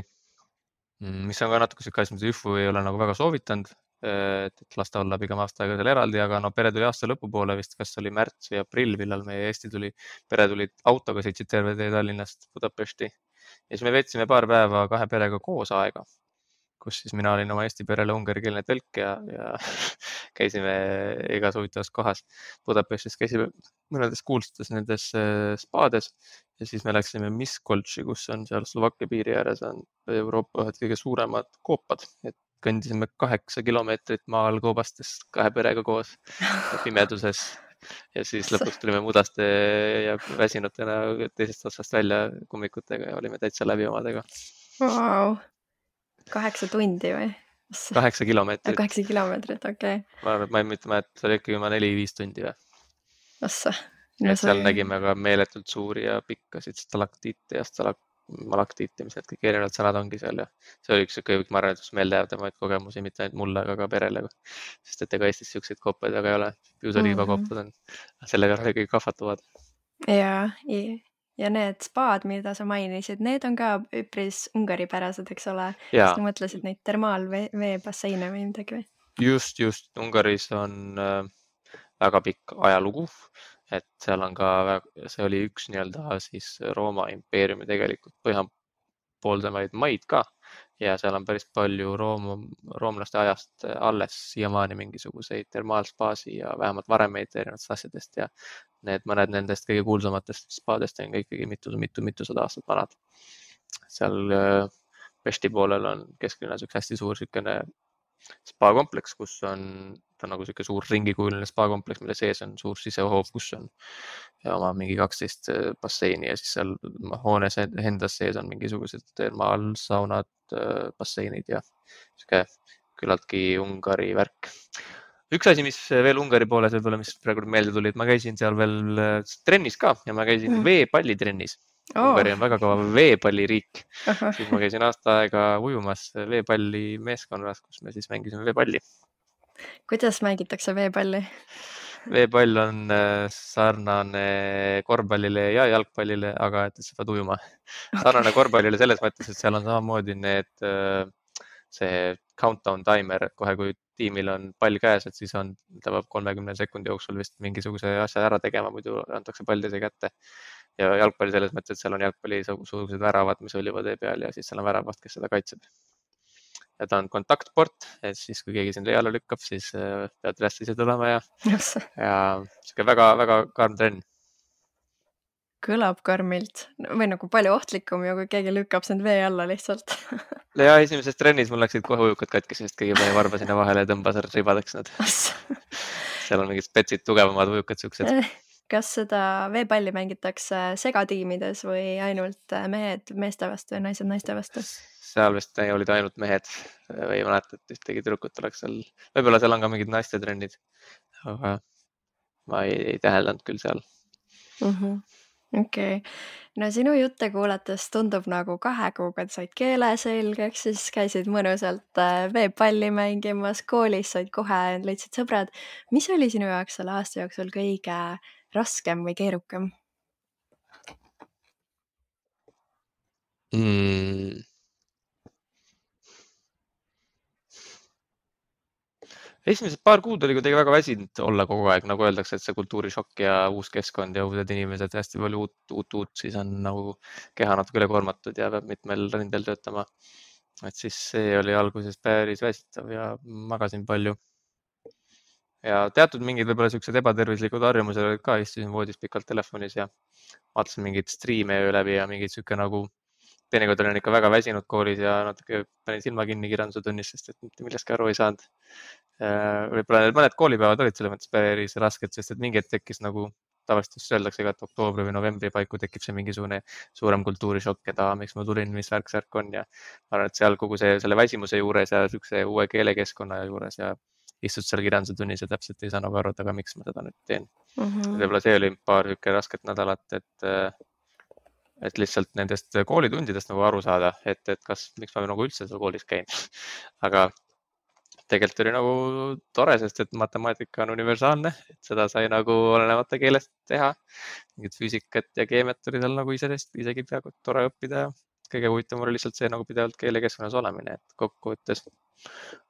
mis on ka natuke siuke asi, mida Üfu ei ole nagu väga soovitanud, et las ta olla pigem aasta aega seal eraldi, aga no pere tuli aasta lõpupoole vist, kas oli märts või aprill, millal meie Eesti tuli, pere tuli autoga, sõitsid terve tee Tallinnast Budapesti ja siis me veetsime paar päeva kahe perega koos aega, kus siis mina olin oma Eesti perele ungarikeelne tõlk ja käisime igas huvitavas kohas. Budapestis käisime mõnedes kuulsates nendes spaades ja siis me läksime Miskolci, kus on seal Slovakkia piiri ääres on Euroopa ühed kõige suuremad koopad, et kõndisime 8 kilomeetrit maal koobastes kahe perega koos pimeduses ja siis lõpuks tulime mudaste ja väsinutena teisest otsast välja kummikutega ja olime täitsa läbi omadega. Wow. 8 tundi või? 8 kilomeetrit. 8 kilomeetrit, okei. Ma ei mõtle, et see oli ikkagi 4-5 tundi või. Ossa. Seal nägime ka meeletult suuri ja pikkasid stalaktiite ja malaktiite, mis need kõik erinevad sõnad ongi seal ja see oli üks kõik, ma arvan, et üks meeldejäävamaid kogemusi, mitte ainult mulle, aga ka perele. Sest et ega Eestis siukseid koopaid väga ei ole. Piusaliivakoopad on, sellega kõik kahvatuvad. Ja need spaad, mida sa mainisid, need on ka üpris ungaripärased, eks ole? Sa mõtlesid neid termaalveebasseine või midagi või? Just. Ungaris on väga pikk ajalugu, et seal on ka, see oli üks nii-öelda siis Rooma impeeriumi tegelikult põhjapooldamaid maid ka ja seal on päris palju roomlaste ajast alles siiamaani mingisuguseid termaalspaasi ja vähemalt varemeid erinevatest asjadest ja mõned nendest kõige kuulsamatest spaadest on ikkagi mitusada aastat vanad. Seal Pesti poolel on kesklinnas üks hästi suur siukene spa-kompleks, kus on, ta on nagu siuke suur ringikujuline spa-kompleks, mille sees on suur sisehoov, kus on oma mingi 12 basseini ja siis seal hoones endas sees on mingisugused termaalsaunad, basseinid ja siuke küllaltki Ungari värk. Üks asi, mis veel Ungari pooles võib-olla, mis praegu meelde tuli, et ma käisin seal veel trennis ka ja ma käisin veepallitrennis. Ungari on väga kõva veepalliriik. Siis ma käisin aasta aega ujumas veepalli meeskonnas, kus me siis mängisime veepalli. Kuidas mängitakse veepalli? Veepall on sarnane korvpallile ja jalgpallile, aga et sa pead ujuma. Sarnane korvpallile selles mõttes, et seal on samamoodi see countdown timer, et kohe kui tiimil on pall käes, et siis ta peab 30 sekundi jooksul vist mingisuguse asja ära tegema, muidu antakse pall teise kätte. Ja jalgpalli selles mõttes, et seal on jalgpalli suurused väravad, mis oljuvad tee peal ja siis seal on väravaht, kes seda kaitseb. ja ta on kontaktport, et siis kui keegi sind vee alla lükkab, siis pead üles ise tulema ja sihuke väga-väga karm trenn. Kõlab karmilt või nagu palju ohtlikum ju, kui keegi lükkab sind vee alla lihtsalt. Ja esimeses trennis mul läksid kohe ujukad katki, sest keegi pani varba sinna vahele ja tõmbas ribadeks nad. Seal on mingid spetsid, tugevamad ujukad siuksed. Kas seda veepalli mängitakse segatiimides või ainult mehed meeste vastu ja naised naiste vastu? Seal vist olid ainult mehed või ei mäleta, et ühtegi tüdrukut oleks seal. Võib-olla seal on ka mingid naiste trennid, aga ma ei täheldanud küll seal. Okei. No sinu jutte kuulates tundub nagu 2 kuuga said keele selgeks, siis käisid mõnusalt veepalli mängimas, koolis said kohe, leidsid sõbrad. Mis oli sinu jaoks selle aasta jooksul kõige raskem või keerukam? Esimesed paar kuud oli kuidagi väga väsinud olla kogu aeg, nagu öeldakse, et see kultuurishokk ja uus keskkond ja uued inimesed, hästi palju uut, siis on nagu keha natuke ülekoormatud ja peab mitmel rindel töötama. Et siis see oli alguses päris väsitav ja magasin palju. Ja teatud mingid võib-olla siuksed ebatervislikud harjumused olid ka, istusin voodis pikalt telefonis ja vaatasin mingeid striime öö läbi ja mingid siuke nagu teinekord olin ikka väga väsinud koolis ja natuke panin silma kinni kirjanduse tunnis, sest et mitte millestki aru ei saanud. Võib-olla need mõned koolipäevad olid selles mõttes päris rasked, sest et mingi hetk tekkis nagu tavaliselt öeldakse ka, et oktoobri või novembri paiku tekib see mingisugune suurem kultuurishokk, et miks ma tulin, mis värk on ja ma arvan, et seal kogu selle väsimuse juures ja siukse uue keelekeskkonna juures ja istud seal kirjanduse tunnis ja täpselt ei saa nagu aru, aga miks ma seda nüüd teen. Võib-olla see oli paar siuke rasket nädalat, et lihtsalt nendest koolitundidest nagu aru saada, et miks ma nagu üldse seal koolis käin. Aga tegelikult oli nagu tore, sest et matemaatika on universaalne, et seda sai nagu olenemata keelest teha. Mingid füüsikat ja keemiat oli seal nagu isegi peaaegu tore õppida ja kõige huvitavam oli lihtsalt see nagu pidevalt keelekeskkonnas olemine, et kokkuvõttes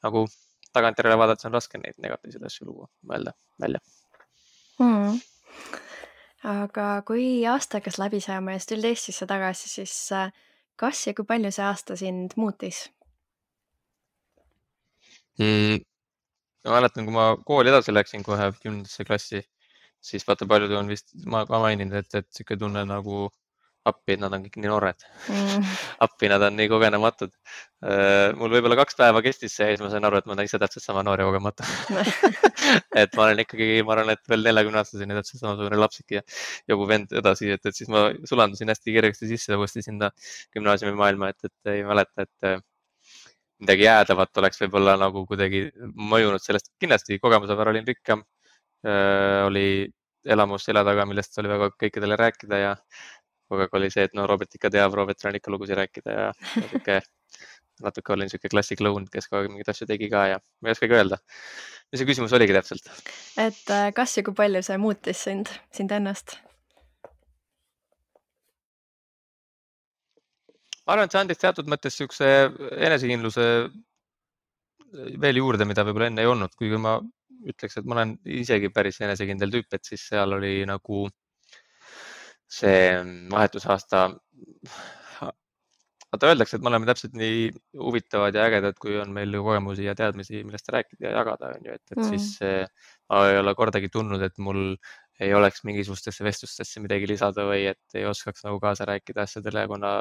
nagu tagantjärele vaadates on raske neid negatiivseid asju mõelda välja. Aga kui aasta hakkas läbi saama ja siis tulid Eestisse tagasi, siis kas ja kui palju see aasta sind muutis? Ma mäletan, kui ma kooli edasi läksin kohe 10. klassi, siis vaata paljud on vist, ma ka maininud, et siuke tunne nagu appi, et nad on kõik nii noored. Appi, nad on nii kogenematud. Mul võib-olla 2 päeva kestis see ja siis ma sain aru, et ma olen ise täpselt sama noor ja kogemata. Et ma olen ikkagi, ma arvan, et veel 40-aastaseni täpselt samasugune lapsik ja jogu vend edasi, et siis ma sulandusin hästi kergesti sisse uuesti sinna gümnaasiumi maailma, et ei mäleta, et midagi jäädavat oleks võib-olla nagu kuidagi mõjunud sellest. Kindlasti kogemuse võrra olin rikkam, oli elamus selja taga, millest oli väga kõikidele rääkida ja kogu aeg oli see, et no Robert ikka teab, Robertil on ikka lugusid rääkida ja natuke olin siuke klassikloun, kes kogu aeg mingeid asju tegi ka ja ma ei oskagi öelda. Mis see küsimus oligi täpselt? Et kas ja kui palju see muutis sind ennast? Ma arvan, et see andis teatud mõttes siukse enesekindluse veel juurde, mida võib-olla enne ei olnud, kuigi ma ütleks, et ma olen isegi päris enesekindel tüüp, et siis seal oli nagu see vahetusaasta. Vaata öeldakse, et me oleme täpselt nii huvitavad ja ägedad, kui on meil kogemusi ja teadmisi, millest rääkida ja jagada, on ju, et siis ma ei ole kordagi tundnud, et mul ei oleks mingisugustesse vestlustesse midagi lisada või et ei oskaks nagu kaasa rääkida asjadele, kuna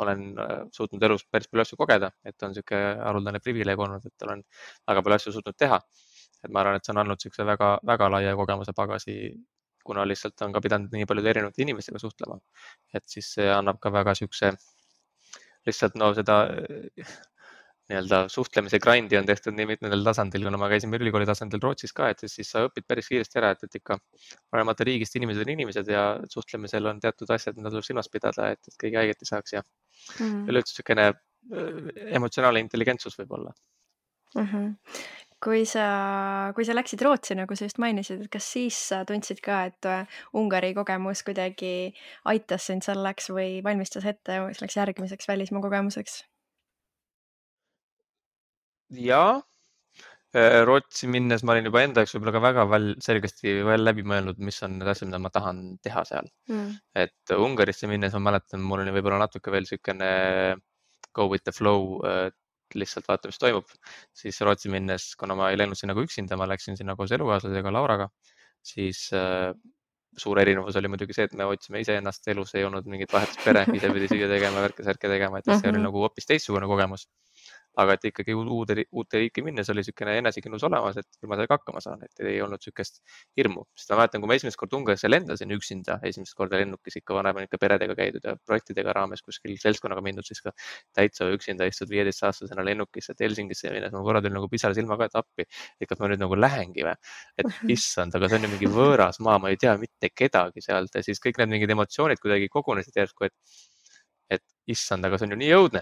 olen suutnud elus päris palju asju kogeda, et on siuke haruldane privileeg olnud, et olen väga palju asju suutnud teha. Et ma arvan, et see on andnud siukse väga, väga laia kogemuse pagasi, kuna lihtsalt on ka pidanud nii paljude erinevate inimestega suhtlema. Et siis see annab ka väga siukse lihtsalt seda nii-öelda suhtlemise grindi on tehtud nii mitmendal tasandil, kuna ma käisin ülikooli tasandil Rootsis ka, et siis sa õpid päris kiiresti ära, et ikka olemata riigist inimesed on inimesed ja suhtlemisel on teatud asjad, mida tuleb silmas pidada, et keegi haiget ei saaks ja üleüldse siukene emotsionaalne intelligentsus võib olla. Kui sa läksid Rootsi, nagu sa just mainisid, et kas siis tundsid ka, et Ungari kogemus kuidagi aitas sind selleks või valmistas ette selleks järgmiseks välismaa kogemuseks? Ja, Rootsi minnes ma olin juba enda jaoks võib-olla ka väga selgesti läbi mõelnud, mis on need asjad, mida ma tahan teha seal. Et Ungarisse minnes ma mäletan, mul oli võib-olla natuke veel siukene go with the flow lihtsalt vaata, mis toimub. Siis Rootsi minnes, kuna ma ei läinud sinna nagu üksinda, ma läksin sinna koos elukaaslasega Lauraga, siis suur erinevus oli muidugi see, et me otsime iseennast elus, ei olnud mingit vahetuspere, ise pidi süüa tegema, värke-särke tegema, et see oli nagu hoopis teistsugune kogemus. Aga et ikkagi uute riiki minnes oli niisugune enesekindlus olemas, et küll ma sellega hakkama saan, et ei olnud niisugust hirmu. Sest ma mäletan, kui ma esimest kord Ungarisse lendasin üksinda, esimest korda lennukis ikka vanem ikka peredega käidud ja projektidega raames kuskil seltskonnaga mindud, siis ka täitsa üksinda istud 15-aastasena lennukisse, et Helsingisse minnes ma korra tuli nagu pisar silmaga, et appi, et kas ma nüüd nagu lähengi või, et issand, aga see on ju mingi võõras maa, ma ei tea mitte kedagi sealt ja siis kõik need mingid emotsioonid kuidagi kogunesid järsku, et issand, aga see on ju nii õudne.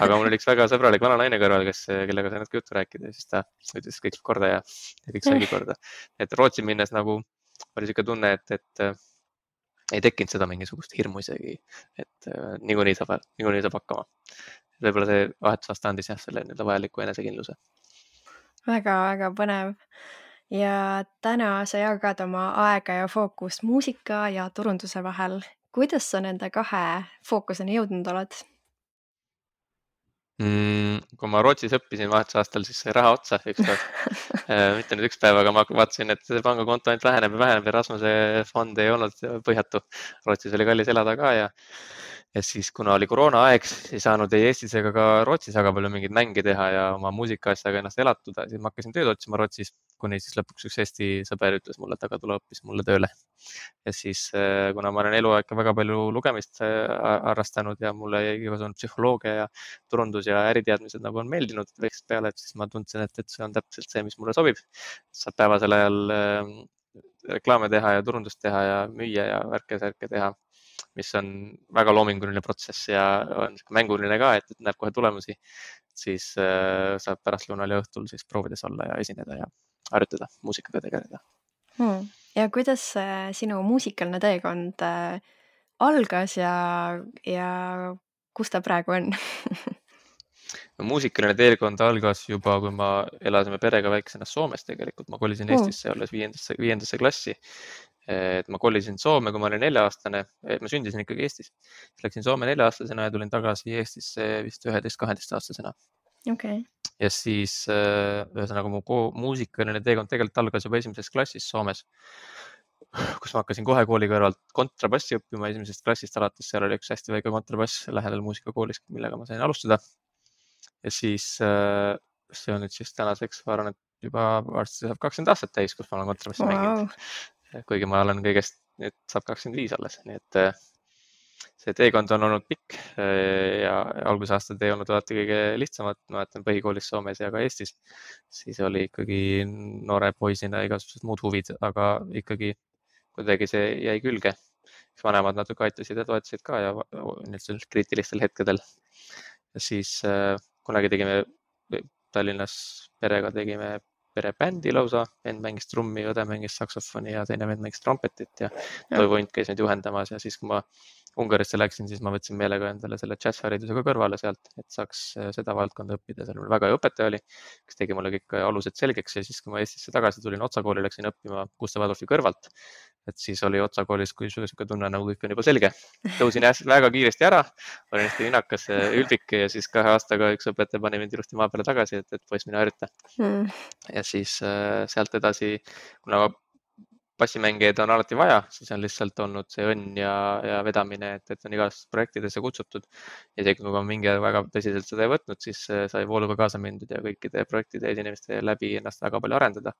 Aga mul oli üks väga sõbralik vana naine kõrval, kellega sai natuke juttu rääkida ja siis ta ütles kõik korda ja kõik saigi korda. Et Rootsi minnes nagu oli siuke tunne, et ei tekkinud seda mingisugust hirmu isegi, et niikuinii saab hakkama. Võib-olla see vahetusaasta andis jah selle vajaliku enesekindluse. Väga-väga põnev. Ja täna sa jagad oma aega ja fookust muusika ja turunduse vahel. Kuidas sa nende kahe fookuseni jõudnud oled? Kui ma Rootsis õppisin vahetusaastal, siis sai raha otsa ükskord. Mitte nüüd üks päev, aga ma vaatasin, et see pangakonto ainult väheneb ja väheneb ja Rasmuse fond ei olnud põhjatu. Rootsis oli kallis elada ka ja siis, kuna oli koroonaaeg, ei saanud ei Eestis ega ka Rootsis väga palju mingeid mänge teha ja oma muusikaasjaga ennast elatuda, siis ma hakkasin tööd otsima Rootsis, kuni siis lõpuks üks Eesti sõber ütles mulle, et aga tule hoopis mulle tööle. Ja siis, kuna ma olen eluaeg väga palju lugemist harrastanud ja mulle igasugune psühholoogia ja turundus ja äriteadmised nagu on meeldinud väiksest peale, et siis ma tundsin, et see on täpselt see, mis mulle sobib. Saab päevasel ajal reklaame teha ja turundust teha ja müüa ja värke-särke teha, mis on väga loominguline protsess ja on mänguline ka, et näeb kohe tulemusi. Siis saab pärastlõunal ja õhtul siis proovides olla ja esineda ja harjutada, muusikaga tegeleda. Ja kuidas sinu muusikaline teekond algas ja kus ta praegu on? Muusikaline teekond algas juba, kui ma elasime perega väiksena Soomes tegelikult. Ma kolisin Eestisse olles viiendasse klassi. Et ma kolisin Soome, kui ma olin 4-aastane. Ma sündisin ikkagi Eestis. Läksin Soome 4-aastasena ja tulin tagasi Eestisse vist 11-12-aastasena. Okay. Ja siis ühesõnaga mu muusikaline teekond tegelikult algas juba esimeses klassis Soomes, kus ma hakkasin kohe kooli kõrvalt kontrabassi õppima esimesest klassist alates. Seal oli üks hästi väike kontrabass lähedal muusikakoolis, millega ma sain alustada. Ja siis see on nüüd siis tänaseks, ma arvan, et juba varsti saab 20 aastat täis, kus ma olen kontrabassi mänginud. Kuigi ma olen kõigest, nüüd saab 25 alles, nii et see teekond on olnud pikk ja algusaastad ei olnud alati kõige lihtsamad. Ma mäletan põhikoolis Soomes ja ka Eestis, siis oli ikkagi noore poisina igasugused muud huvid, aga ikkagi kuidagi see jäi külge. Vanemad natuke aitasid ja toetasid ka ja nüüd kriitilistel hetkedel. Ja siis kunagi tegime Tallinnas perega perebändi lausa, vend mängis trummi, õde mängis saksofoni ja teine vend mängis trompetit ja Toivo Unt käis meid juhendamas ja siis, kui ma Ungarisse läksin, siis ma võtsin meelega endale selle džässharidusega kõrvale sealt, et saaks seda valdkonda õppida. Seal mul väga hea õpetaja oli, kes tegi mulle kõik alused selgeks ja siis, kui ma Eestisse tagasi tulin, Otsa kooli läksin õppima Gustav Adolfi kõrvalt. Et siis oli Otsa koolis, kui siuke tunne nagu kõik on juba selge. Tõusin väga kiiresti ära, olin hästi vinakas, ülbik ja siis 2 aastaga üks õpetaja pani mind ilusti maa peale tagasi, et poiss mine harjuta. Ja siis sealt edasi, kuna bassimängijaid on alati vaja, siis on lihtsalt olnud see õnn ja vedamine, et on igast projektidesse kutsutud. Ja isegi kui ma mingi aeg väga tõsiselt seda ei võtnud, siis sai vooluga kaasa mindud ja kõikide projektide esinemiste läbi ennast väga palju arendada.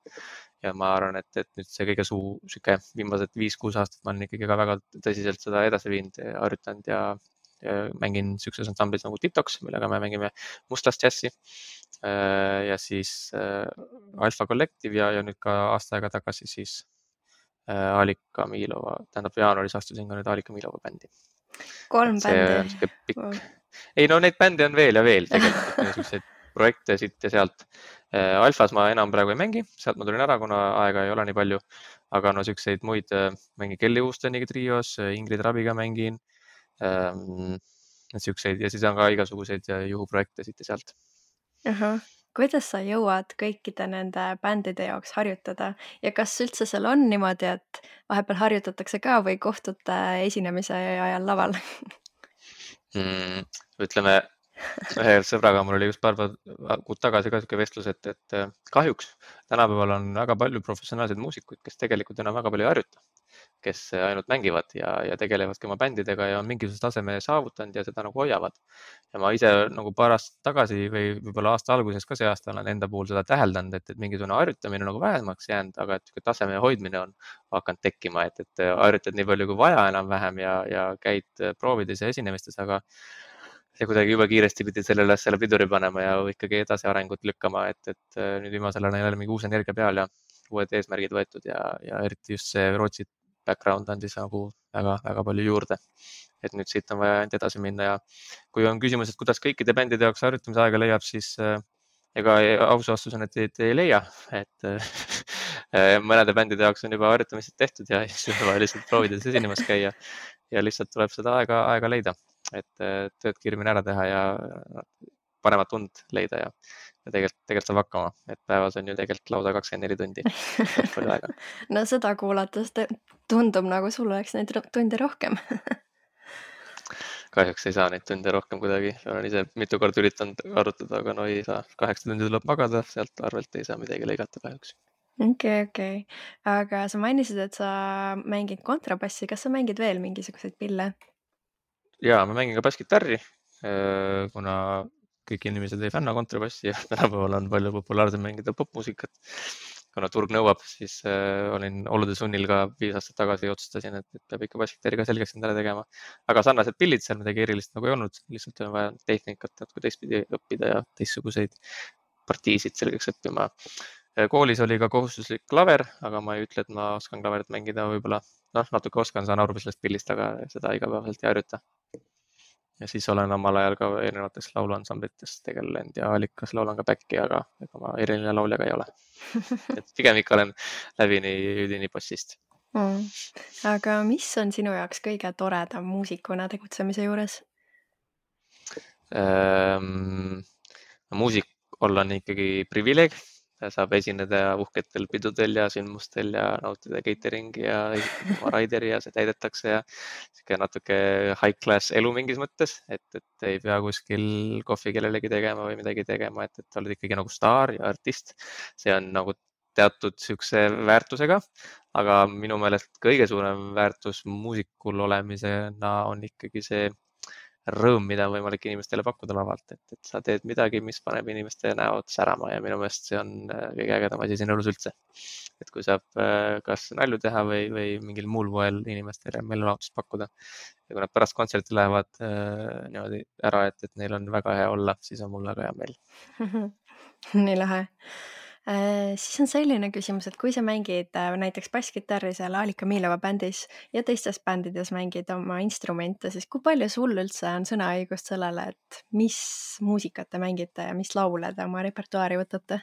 Ja ma arvan, et nüüd see kõige siuke viimased 5-6 aastat ma olen ikkagi ka väga tõsiselt seda edasi viinud, harjutanud ja mängin siukses ansamblis nagu TikToks, millega me mängime mustlast džässi. Ja siis Alfa Collective ja nüüd ka aasta aega tagasi siis Alika Milova, tähendab jaanuaris astusin ka nüüd Alika Milova bändi. 3 bändi. Wow. Ei no neid bände on veel ja veel tegelikult, niisuguseid projekte siit ja sealt. Alfas ma enam praegu ei mängi, sealt ma tulin ära, kuna aega ei ole nii palju, aga no siukseid muid mängin Kelly Houstoniga trios, Ingrid Rabiga mängin, siukseid ja siis on ka igasuguseid juhuprojekte siit ja sealt. Kuidas sa jõuad kõikide nende bändide jaoks harjutada ja kas üldse seal on niimoodi, et vahepeal harjutatakse ka või kohtute esinemise ajal laval? Ütleme, ühe sõbraga mul oli just paar kuud tagasi ka sihuke vestlus, et kahjuks tänapäeval on väga palju professionaalseid muusikuid, kes tegelikult enam väga palju ei harjuta, kes ainult mängivad ja tegelevadki oma bändidega ja on mingisuguse taseme saavutanud ja seda nagu hoiavad. Ja ma ise nagu paar aastat tagasi või võib-olla aasta alguses ka see aasta olen enda puhul seda täheldanud, et mingisugune harjutamine nagu vähemaks jäänud, aga et taseme hoidmine on hakanud tekkima, et harjutad nii palju kui vaja enam-vähem ja käid proovides ja esinemistes, aga ja kuidagi jube kiiresti pidid sellele asjale piduri panema ja ikkagi edasi arengut lükkama, et nüüd viimasel ajal on jälle mingi uus energia peal ja uued eesmärgid võetud ja eriti just see Rootsi background andis nagu väga palju juurde. Et nüüd siit on vaja ainult edasi minna ja kui on küsimus, et kuidas kõikide bändide jaoks harjutamise aega leiab, siis ega aus vastus on, et ei leia, et mõnede bändide jaoks on juba harjutamised tehtud ja siis on vaja lihtsalt proovides esinemas käia ja lihtsalt tuleb seda aega leida, et tööd kiiremini ära teha ja paremat und leida ja tegelikult saab hakkama, et päevas on ju tegelikult lausa 24 tundi, päris palju aega. no seda kuulates tundub nagu sul oleks neid tunde rohkem. Kahjuks ei saa neid tunde rohkem kuidagi, olen ise mitu korda üritanud arutada, aga no ei saa, 8 tundi tuleb magada, sealt arvelt ei saa midagi lõigata kahjuks. Okei. Aga sa mainisid, et sa mängid kontrabassi, kas sa mängid veel mingisuguseid pille? Ja ma mängin ka basskitarri, kuna kõik inimesed ei fänna kontrabassi ja tänapäeval on palju populaarsem mängida popmuusikat. Kuna turg nõuab, siis olin olude sunnil ka 5 aastat tagasi otsustasin, et peab ikka basskitarri ka selgeks endale tegema. Aga sarnased pillid seal midagi erilist nagu ei olnud, lihtsalt on vaja tehnikat natuke teistpidi õppida ja teistsuguseid partiisid selgeks õppima. Koolis oli ka kohustuslik klaver, aga ma ei ütle, et ma oskan klaverit mängida, võib-olla natuke oskan, saan aru sellest pillist, aga seda igapäevaselt ei harjuta. Ja siis olen omal ajal ka erinevates lauluansamblites tegelenud ja Allikas laulan ka back'i, aga ega ma eriline laulja ka ei ole. Et pigem ikka olen läbini üdini bassist. Aga mis on sinu jaoks kõige toredam muusikuna tegutsemise juures? Muusik olla on ikkagi privileeg. Saab esineda uhketel pidudel ja sündmustel ja nautida cateringi ja oma raideri ja see täidetakse ja sihuke natuke high class elu mingis mõttes, et ei pea kuskil kohvi kellelegi tegema või midagi tegema, et oled ikkagi nagu staar ja artist. See on nagu teatud sihukese väärtusega, aga minu meelest kõige suurem väärtus muusikul olemisena on ikkagi see rõõm, mida on võimalik inimestele pakkuda lavalt, et sa teed midagi, mis paneb inimeste näod särama ja minu meelest see on kõige ägedam asi siin elus üldse. Et kui saab kas nalju teha või mingil muul moel inimestele meelelahutust pakkuda ja kui nad pärast kontserti lähevad niimoodi ära, et neil on väga hea olla, siis on mul väga hea meel. Nii lahe. Siis on selline küsimus, et kui sa mängid näiteks basskitarri seal Alika Miilova bändis ja teistes bändides mängid oma instrumente, siis kui palju sul üldse on sõnaõigust sellele, et mis muusikat te mängite ja mis laule te oma repertuaari võtate?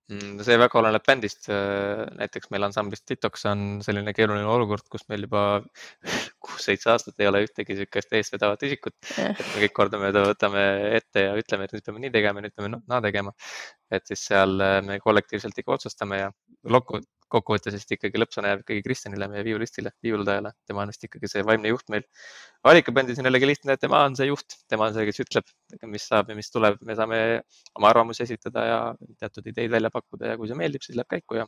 See väga oleneb bändist. Näiteks meil ansamblis Detox on selline keeruline olukord, kus meil juba 6-7 aastat ei ole ühtegi sihukest eestvedavat isikut. Et me kõik kordamööda võtame ette ja ütleme, et nüüd peame nii tegema, nüüd peame naa tegema. Et siis seal me kollektiivselt ikka otsustame ja kokkuvõttes vist ikkagi lõppsõna jääb ikkagi Kristjanile, meie viiulistile, viiuldajale. Tema on vist ikkagi see vaimne juht meil. Alika bändis on jällegi lihtne, et tema on see juht, tema on see, kes ütleb, mis saab ja mis tuleb. Me saame oma arvamusi esitada ja teatud ideid välja pakkuda ja kui see meeldib, siis läheb käiku ja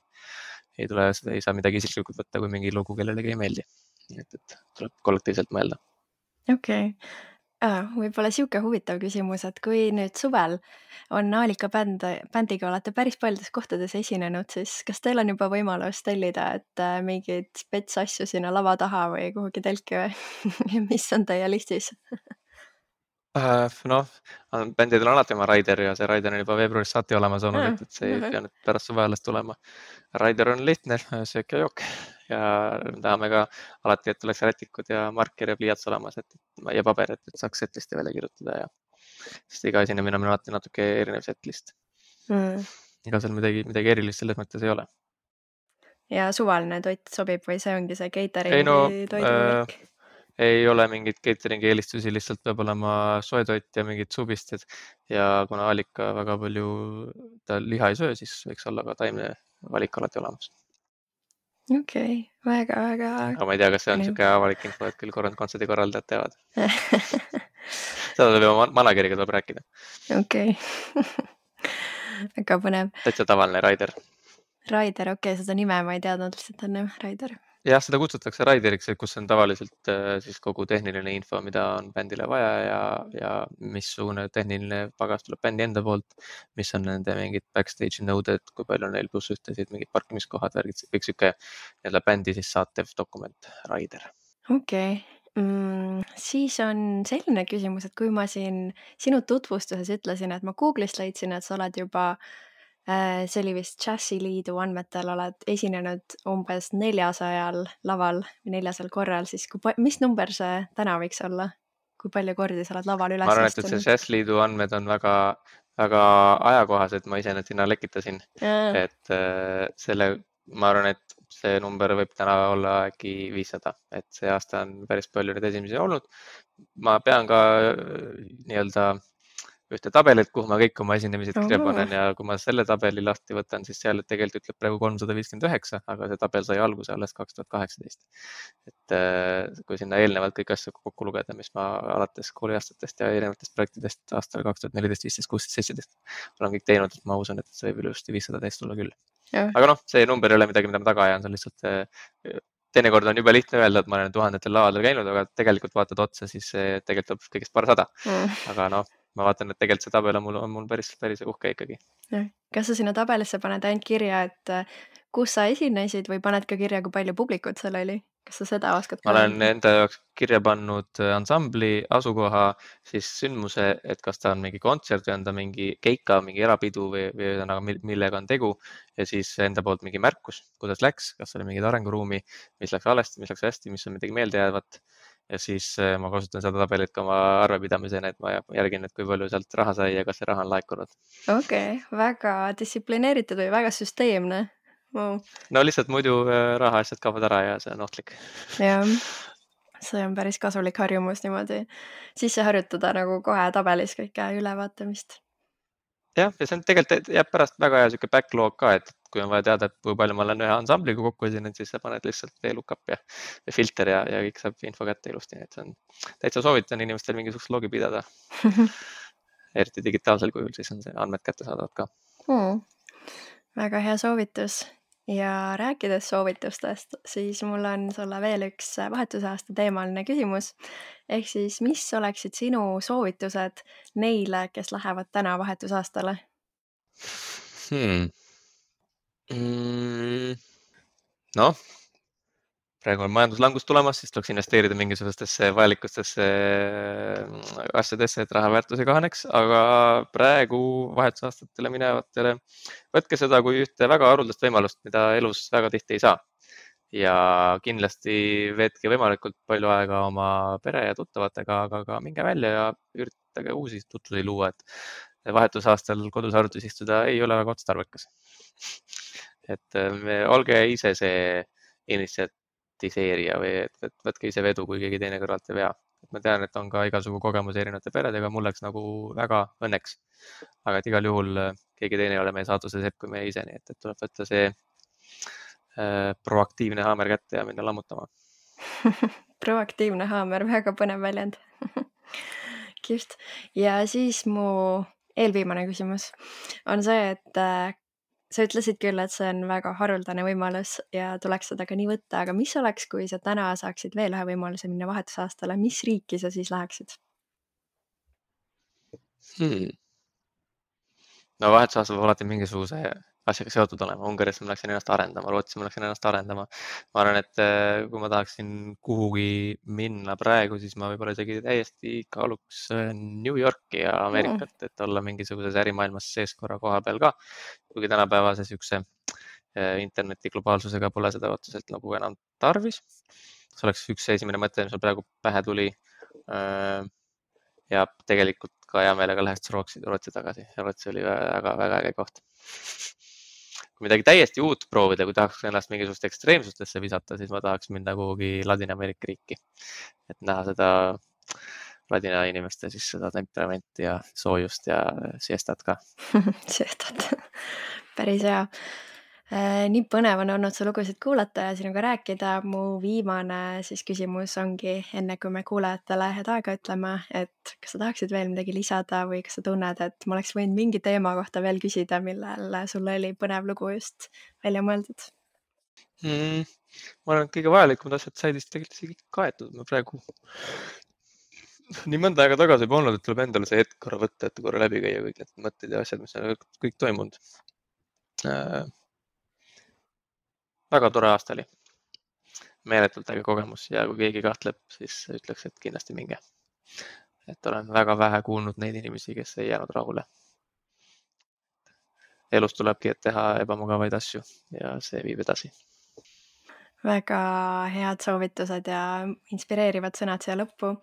ei saa midagi isiklikult võtta, kui mingi lugu kellelegi ei meeldi. Nii et tuleb kollektiivselt mõelda. Okei. Võib-olla sihuke huvitav küsimus, et kui nüüd suvel on Alika bändiga olete päris paljudes kohtades esinenud, siis kas teil on juba võimalus tellida, et mingeid spets asju sinna lava taha või kuhugi telki või mis on teie listis? Bändidel on alati oma Raider ja see Raider on juba veebruarist saati olemas olnud, et see ei pea nüüd pärast suve alles tulema. Raider on lihtne, söök ja jook ja tahame ka alati, et tuleks rätikud ja marker ja pliiats olemas ja paber, et saaks setlisti välja kirjutada ja sest iga esinemine on alati natuke erinev setlist. Ega seal midagi erilist selles mõttes ei ole. Ja suvaline toit sobib või see ongi see cateringi toiduvärk? Ei ole mingit cateringi eelistusi, lihtsalt peab olema soe toit ja mingid suvisted ja kuna Alika väga palju ta liha ei söö, siis võiks olla ka taimne valik alati olemas. okei, väga-väga aga ma ei tea, kas see on põnev. niisugune avalik info, et küll kontserdi korraldajad teavad. Seda tuleb juba manageriga tuleb rääkida. okei. väga põnev. Täitsa tavaline Raider. Raider, okei, seda nime ma ei teadnud lihtsalt enne, Raider. Jah, seda kutsutakse Raideriks, kus on tavaliselt siis kogu tehniline info, mida on bändile vaja ja missugune tehniline pagas tuleb bändi enda poolt, mis on nende mingid backstage'i nõuded, kui palju on neil plussühtesid, mingid parkimiskohad, värgid, kõik sihuke nii-öelda bändi siis saatev dokument, Raider. okei. Siis on selline küsimus, et kui ma siin sinu tutvustuses ütlesin, et ma Google'ist leidsin, et sa oled juba, see oli vist Džässiliidu andmetel, oled esinenud umbes 400 laval või 400 korral, siis mis number see täna võiks olla? Kui palju kordi sa oled laval ma üles arvan, et see astunud? Jazzliidu andmed on väga ajakohased, ma ise need sinna lekitasin, et ma arvan, et see number võib täna olla äkki 500, et see aasta on päris palju neid esimesi olnud. Ma pean ka nii-öelda ühte tabelit, kuhu ma kõik oma esinemised kirja panen ja kui ma selle tabeli lahti võtan, siis seal tegelikult ütleb praegu 359, aga see tabel sai alguse alles 2018. Et kui sinna eelnevalt kõik asju kokku lugeda, mis ma alates kooliaastatest ja erinevatest projektidest aastal 2014, 15, 16, 17 olen kõik teinud, et ma usun, et see võib ilusti 500 täis tulla küll. Aga noh, see number ei ole midagi, mida ma taga ajan, see on lihtsalt teinekord on jube lihtne öelda, et ma olen tuhandetel lavadel käinud, aga tegelikult vaatad otsa, siis tegelikult tuleb kõigest paarsada. Aga noh, ma vaatan, et tegelikult see tabel on mul päris uhke ikkagi. Kas sa sinna tabelisse paned ainult kirja, et kus sa esinesid või paned ka kirja, kui palju publikut seal oli? Kas sa seda oskad? Ma olen enda jaoks kirja pannud ansambli, asukoha, siis sündmuse, et kas ta on mingi kontsert või on ta mingi keika, mingi erapidu või millega on tegu ja siis enda poolt mingi märkus, kuidas läks, kas oli mingid arenguruumi, mis läks valesti, mis läks hästi, mis on midagi meeldejäävat. Ja siis ma kasutan seda tabelit ka oma arvepidamisena, et ma järgin, et kui palju sealt raha sai ja kas see raha on laekunud. Okei, väga distsiplineeritud või väga süsteemne. Wow. No lihtsalt muidu rahaasjad kaovad ära ja see on ohtlik. Jah, see on päris kasulik harjumus niimoodi sisse harjutada nagu kohe tabelis kõike ülevaatamist. Jah, ja see on tegelikult jääb pärast väga hea sihuke backlog ka, et kui on vaja teada, et kui palju ma olen ühe ansambliga kokku esinenud, siis sa paned lihtsalt VLOOKUP ja filter ja kõik saab info kätte ilusti, et see on täitsa soovitan inimestel mingisugust logi pidada. Eriti digitaalsel kujul, siis on see andmed kättesaadavad ka. Väga hea soovitus. Ja rääkides soovitustest, siis mul on sulle veel üks vahetusaasta teemaline küsimus. Ehk siis, mis oleksid sinu soovitused neile, kes lähevad täna vahetusaastale? Noh, praegu on majanduslangus tulemas, siis tuleks investeerida mingisugustesse vajalikustesse asjadesse, et raha väärtus ei kahaneks, aga praegu vahetusaastatele minevatele võtke seda kui ühte väga haruldast võimalust, mida elus väga tihti ei saa. Ja kindlasti veetke võimalikult palju aega oma pere ja tuttavatega, aga ka minge välja ja üritage uusi tutvusi luua, et vahetusaastal kodus arvutis istuda ei ole väga otstarbekas. Et olge ise see initsiatiseerija või et võtke ise vedu, kui keegi teine kõrvalt ei vea. Ma tean, et on ka igasugu kogemusi erinevate peredega, mul läks nagu väga õnneks. Aga et igal juhul keegi teine ei ole meie saatuse sepp kui meie ise, nii et tuleb võtta see proaktiivne haamer kätte ja minna lammutama. Proaktiivne haamer, väga põnev väljend. Kihvt. Ja siis mu eelviimane küsimus on see, et sa ütlesid küll, et see on väga haruldane võimalus ja tuleks seda ka nii võtta, aga mis oleks, kui sa täna saaksid veel ühe võimaluse minna vahetusaastale, mis riiki sa siis läheksid? No vahetusaasta peab alati mingisuguse asjaga seotud olema. Ungaris ma läksin ennast arendama, Rootsi ma läksin ennast arendama. Ma arvan, et kui ma tahaksin kuhugi minna praegu, siis ma võib-olla isegi täiesti kaaluks New Yorki ja Ameerikat, et olla mingisuguses ärimaailmas sees korra koha peal ka. Kuigi tänapäevase siukse interneti globaalsusega pole seda otseselt nagu enam tarvis. See oleks üks esimene mõte, mis mul praegu pähe tuli. Ja tegelikult ka hea meelega läheks Rootsi tagasi. Rootsi oli väga äge koht. Kui midagi täiesti uut proovida, kui tahaks ennast mingisugust ekstreemsustesse visata, siis ma tahaks minna kuhugi Ladina-Ameerika riiki. Et näha seda ladina inimeste siis seda temperamenti ja soojust ja siestat ka. Siestat. Päris hea. Nii põnev on olnud su lugusid kuulata ja sinuga rääkida. Mu viimane siis küsimus ongi, enne kui me kuulajatele head aega ütleme, et kas sa tahaksid veel midagi lisada või kas sa tunned, et ma oleks võinud mingi teema kohta veel küsida, millel sul oli põnev lugu just välja mõeldud? Ma arvan, et kõige vajalikumad asjad said vist tegelikult isegi kaetud. Ma praegu nii mõnda aega tagasi juba olnud, et tuleb endale see hetk korra võtta, et korra läbi käia kõik need mõtted ja asjad, mis on kõik toimunud. Väga tore aasta oli. Meeletult äge kogemus ja kui keegi kahtleb, siis ütleks, et kindlasti minge. Et olen väga vähe kuulnud neid inimesi, kes ei jäänud rahule. Elus tulebki, et teha ebamugavaid asju ja see viib edasi. Väga head soovitused ja inspireerivad sõnad siia lõppu.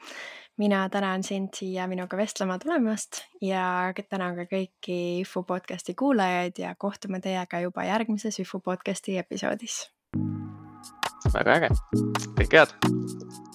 Mina tänan sind siia minuga vestlema tulemast ja tänan ka kõiki Üfu podcasti kuulajaid ja kohtume teiega juba järgmises Üfu podcasti episoodis. Väga äge. Kõike head!